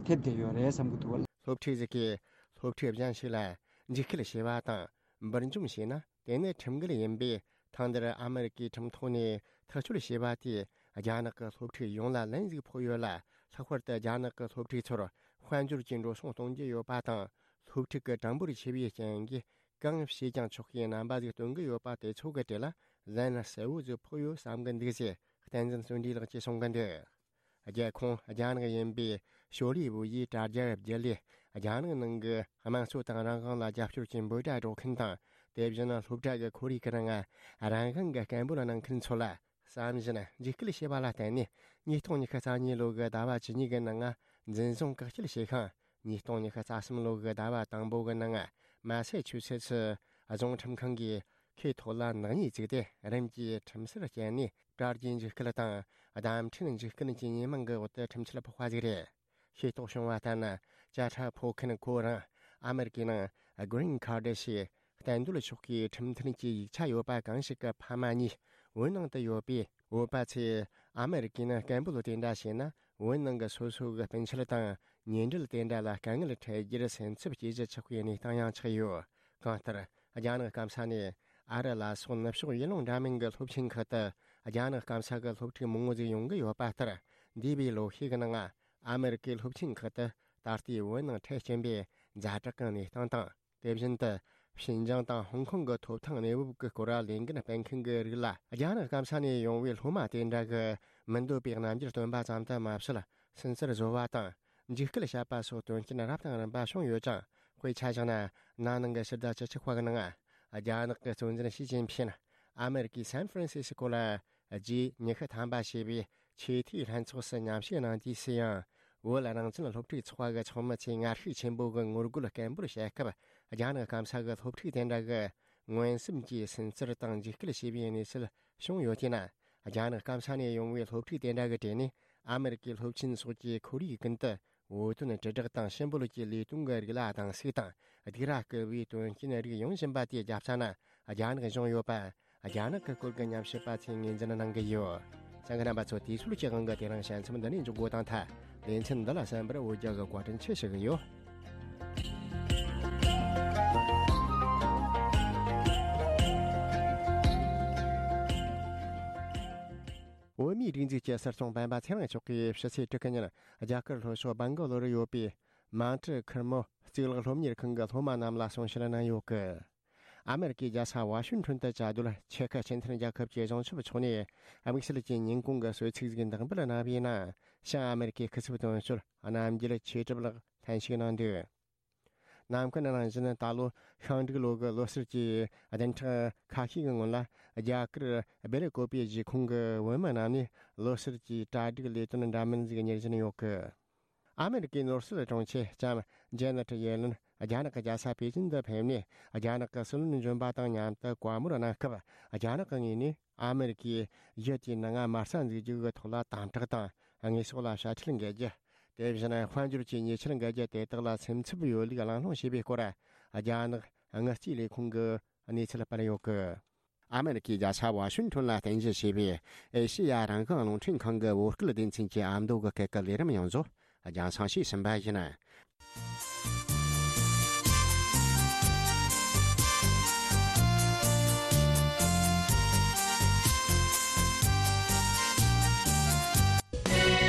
ཐེབས་བསྡད་ཡོད་རེད་བསམ་གྱི་འདུག་བ། སློབ་ཕྲུག་ཟིག་གིས་སློབ་ཕྲུག་གཞན་ཞིག་ལ་འཇིགས་སྐུལ་བྱས་པ་དང་འབུར་འཇོམས་བྱས་ན་དེ་ནི་ཁྲིམས་འགལ་ཡིན་པས། ཐེངས་འདིར་ཨ་མེ་རི་ཀའི་ཁྲིམས་ཐོག་ནས་ཐག་གཅོད་བྱས་པ་དེས་རྒྱ་ནག་གི་སློབ་ཕྲུག་ཡོངས་ལ་ལན་ཟིག་ཕོག་ཡོད་ལ། ལྷག་པར་དུ་རྒྱ་ནག་གི་སློབ་ཕྲུག་ཚོར་དཔལ་འབྱོར་གྱི་འགྲོ་སོང་གཏོང་རྒྱུ་ཡོད་པ་དང་། སློབ་ཕྲུག་གི་གྲངས་འབོར་ཆེ་བའི་རྐྱེན་གྱིས། གང་བྱས་ཀྱང་ཆོག་པའི་རྣམ་པ་ཟིག་སྟོན་གྱི་ཡོད་པ་དེ་ཚོ་གི་གྲས་ལ་ལན་གསལ་བོ་ཟིག་ཕོག་ཡོད་བསམ་གི་འདུག་ཟེར་བསྟན་འཛིན་བརྩོན་འགྲུས་ལགས་ཀྱིས་གསུང་གི་འདུག། རྒྱལ་ཁོངས་རྒྱ་ནག་ཡིན་པའི་ཤོ་ལི་ཝུ་ཡིས་དྲ་རྒྱ་བརྒྱུད་ལས་རྒྱ་ནག་ནང་གི་དམངས་གཙོ་དང་རང་དབང་ལ་རྒྱབ་སྐྱོར་གྱི་འབོད་སྒྲ་སྒྲོག་མཁན་དང་། དེ་བཞིན་སློབ་གྲྭ་གི་ཁོར་ཡུག་གི་ནང་རང་དབང་གི་སྐད་འབོད་གནང་མཁན་ཚོ་ལ། བསམ་བཞིན་འཇིགས་སྐུལ་བྱས་པ་ལ་བརྟེན་ནས། ཉིས་སྟོང་ཉི་ཤུ་རྩ་གཉིས་ལོ་གི་ཟླ་བ་བཅུ་གཉིས་ཀྱི་ནང་འཛིན་བཟུང་བཀག་སྐྱིལ་བྱས་ཤིང་། ཉིས་སྟོང་ཉི་ཤུ་རྩ་གསུམ་ལོ་གི་ཟླ་བ་དང་པོ་གི་ནང་མ་སེ་ཆུ་སེ་ཚི་རྫོང་ཁྲིམས་ཁང་གིས་ཁོའི་ཐོག་ལ་ནག་ཉེས་བཙུགས་ཏེ། རིམ་གྱིས་ཁྲིམས་སར་བསྐྱལ་ནས། དྲ་རྒྱའི་འཇིགས་སྐུལ་དང་བརྡ་འཕྲིན་འཇིགས་སྐུལ་གྱི་ཉེས་མིང་གི་འོག་ཏུ་ཁྲིམས་ཆད་ཕོག་པ་ཟིག་རེད། ཤེས་རྟོགས་བྱུང་བ་ལྟར་ན། བཅད་ཁྲ་ཕོག་མཁན་ཁོ་རང་ཨ་མེ་རི་ཀའི་ནང་གྷི་རིན་ཁར་ཌི་ཞེས་གཏན་སྡོད་ཆོག་གི་ཁྲིམས་མཐུན་གྱི་ཡིག་ཆ་ཡོད་པ་གང་ཞིག་གི་ཕ་མ་གཉིས་བོད་ནང་དུ་ཡོད་པས། བོད་པ་ཚོས་ཨ་མེ་རི་ཀའི་ནང་སྐད་འབོད་དེ་འདྲ་བྱས་ན། བོད་ནང་གི་སོ་སོ་གི་སྤུན་མཆེད་དང་ཉེ་འབྲེལ་དེ་འདྲ་ལ་དཀའ་ངལ་འཕྲད་རྒྱུར་སེམས་འཚབ་སྐྱེ་གཞི་ཆགས་པའི་གནས་སྟངས་ཡང་ཆགས་ཡོད། གང་ལྟར། རྒྱ་ནག་སྐམ་ས་ནས་ཨ་རི་ལ་སོགས་ནུབ་ཕྱོགས་ཡུལ་ལུང་འདྲ་མིན་གྱི་སློབ་ཆེན་ཁག་ཏུ་རྒྱ་ནག་སྐམ་ས་གི་སློབ་ཕྲུག་མང་བོ་ཟིག་ཡོང་གི་ཡོད་པ་ལྟར། འདས་པའི་ལོ་ཤས་ཀྱི་ནང་ཨ་མེ་རི་ཀའི་སློབ་ཆེན་ཁག་ཏུ་ད་ལྟའི་བོད་ནང་འཕྲད་ཀྱིན་པའི་ཛ་དྲག་གི་གནས་སྟངས་དང་། དེ་བཞིན་དུ་ཤིན་ཅང་དང་ཧོང་ཀོང་གི་ཐོབ་ཐང་གནས་བབ་ཀྱི་སྐོར་ལ་ལས་འགན་སྤེལ་མཁན་གྱི་རིགས་ལ། རྒྱ་ནག་སྐམ་ས་ནས་ཡོང་བའི་སློབ་མ་དེ་འདྲ་གི་མི་འདོད་པའི་རྣམ་འགྱུར་སྟོན་པ་ཙམ་དུ་མ་ཟད། སུན་གཙེར་བཟོ་བ་དང་། འཇིགས་སྐུལ་བྱས་པ་སོགས་དོན་རྐྱེན་རབ་དང་རིམ་པ་བྱུང་ཡོད་ཅིང་། དཔེ་ཆ་བཞག་ན། ན་ནིང་གི་ཕྱི་ཟླ་བཅུ་གཅིག་པ་གི་ནང་། རྒྱ་ནག་གི་གཙོ་འཛིན་ཞི་ཅིན་ཕིན་ཨ་མེ་རི་ཀའི་སན་ཧྥ་རན་སི་སི་ཀོ་ལ་རྗེས་ཉི་ཤུ་ཐམ་པ་བྱས་པའི་ཆེས་མཐོའི་ལྷན་ཚོགས་སུ་མཉམ་ཞུགས་གནང་དུས་སུ་ཡང་། བོད་རང་བཙན་སློབ་ཕྲུག་ཚོགས་པ་གི་ཚོགས་མི་ཚོས་ངར་ཤུགས་ཆེན་པོ་གི་ངོ་རྒོལ་སྐད་འབོད་བྱེད་སྐབས། རྒྱ་ནག་སྐམ་ས་གི་སློབ་ཕྲུག་དེ་འདྲ་གི་མངོན་སུམ་གྱིས་སུན་གཙེར་དང་འཇིགས་སྐུལ་བྱས་པའི་གནས་ཚུལ་བྱུང་ཡོད་དེས་ན། རྒྱ་ནག་སྐམ་ས་ནས་ཡོང་བའི་སློབ་ཕྲུག་དེ་འདྲ་གི་གྲས་ནས་ཨ་མེ་རི་ཀའི་སློབ་ཆེན་སོགས་ཀྱི་ཁོར་ཡུག་ཀུན་ཏུ་འོས་ཐོན་དྲིལ་བསྒྲགས་དང་ཕྱི་འབོད་ཀྱི་ལས་དོན་གྱི་རིགས་ལ་སྡང་ཟུག་དང་སྡིགས་ར་སྐུལ་བའི་དོན་རྐྱེན་རིགས་ཡོང་བཞིན་པ་དེ་རྒྱབ་ས་ན་རྒྱ་ནག་གཞུང་ཡོད་པ། རྒྱ་ནག་གི་སྐོར་གྱི་ཉམས་ཞིབ་པ་ཚོས་ངོས་འཛིན་གནང་གི་ཡོད། གསན་མཁན་རྣམ་པ་ཚོ། དུས་ཚོད་ཀྱི་དབང་གིས་དེ་རིང་དཔྱད་རྩོམ་འདི་ནས་འཇོག་དགོས་དང་ཐལ། ལེ་ཚན་འདི་ལ་གསན་པར་འོས་རྒྱ་གི་བཀའ་དྲིན་ཆེ་ཞུ་གི་ཡོད། བོད་མིའི་སྒྲིག་འཛུགས་ཀྱི་སྲིད་སྐྱོང་སྤེན་པ་ཚེ་རིང་མཆོག་གིས་ཕྱི་ཚེས་དྲུག་གི་ཉིན་རྒྱ་གར་ལྷོ་ཕྱོགས་སྦན་གོ་ལོར་ཡོད་པའི་མང་ཀྲི་ཁེར་མོ་གཙུག་ལག་སློབ་གཉེར་ཁང་གི་སློབ་མ་རྣམས་ལ་གསུང་བཤད་གནང་ཡོད་སྐད། ཨ་མེ་རི་ཀའི་རྒྱལ་ས་ཝ་ཤིང་ཊོན་དུ་བཅའ་སྡོད་ཆེ་ཁག་སྤྱི་མཐུན་རྒྱལ་ཁབ་ཀྱི་གཞུང་ཚབ་མཆོག་ནས་དམིགས་བསལ་གྱི་ཉིན་གུང་གི་གསོལ་ཚིགས་ཤིག་འདེགས་འབུལ་གནང་བའི་ནང་། བྱང་ཨ་མེ་རི་ཀའི་སྐུ་ཚབ་དོན་གཅོད་རྣམ་རྒྱལ་ཆོས་གྲུབ་ལགས་ལྷན་ཞུགས་གནང་འདུག། ནམ་རྒྱུན་ནང་བཞིན་ད་ལོ་ཤིང་འབྲུག་ལོ་གི་ལོ་གསར་གྱི་བདུན་ཕྲག་ཁ་ཤས་ཀྱི་སྔོན་ལ། རྒྱ་གར་སྦེལ་ཀོབ་པའི་གཞིས་ཁོངས་ཀྱི་བོད་མི་རྣམས་ནས་ལོ་གསར་གྱི་གྲ་སྒྲིག་ལས་དོན་འདྲ་མིན་ཞིག་གཉེར་བཞིན་ཡོད་སྐད། ཨ་མེ་རི་ཀའི་ནོར་སྲིད་དྲུང་ཆེ་ལྕམ་ཇེ་ནེ་ཊི་ཡེ་ལེན་རྒྱ་ནག་གི་རྒྱལ་ས་པེ་ཅིན་དུ་ཕེབས་ནས། རྒྱ་ནག་གི་སྲིད་བློན་གཞོན་པ་དང་མཉམ་དུ་བཀའ་མོལ་གནང་སྐབས། རྒྱ་ནག་གི་ངོས་ནས་ཨ་མེ་རི་ཀའི་ཡུལ་དེའི་ནང་དམག་ས་འཛུགས་རྒྱུ་གི་ཐོག་ལ་དམ་དྲག་དང་། དངོས་ཟོག་ལ་དཔྱ་ཁྲལ་འགེལ་རྒྱུ། དེ་བཞིན་དཔལ་འབྱོར་གྱི་ཉེས་ཆད་འགེལ་རྒྱུ་དེ་དག་ལ་སེམས་འཚབ་ཡོད་ལུགས་གླེང་སློང་བྱས་པའི་སྐོར། རྒྱ་ནག་དངུལ་རྩིས་ལས་ཁུངས་ཀྱིས་གནས་ཚུལ་སྤེལ་ཡོད་སྐད། ཨ་མེ་རི་ཀའི་རྒྱལ་ས་ཝ་ཤིང་ཊོན་ལ་རྟེན་གཞི་བྱས་པའི་ཨེ་ཤེ་ཡ་རང་དབང་རླུང་འཕྲིན་ཁང་གི་བོད་སྐད་སྡེ་ཚན་གྱི་ཨ་མདོ་གི་སྐད་ཀྱི་ལས་རིམ་ཡོངས་རྫོགས་རྒྱང་སྲིང་བྱས་ཟིན་པ་ཡིན།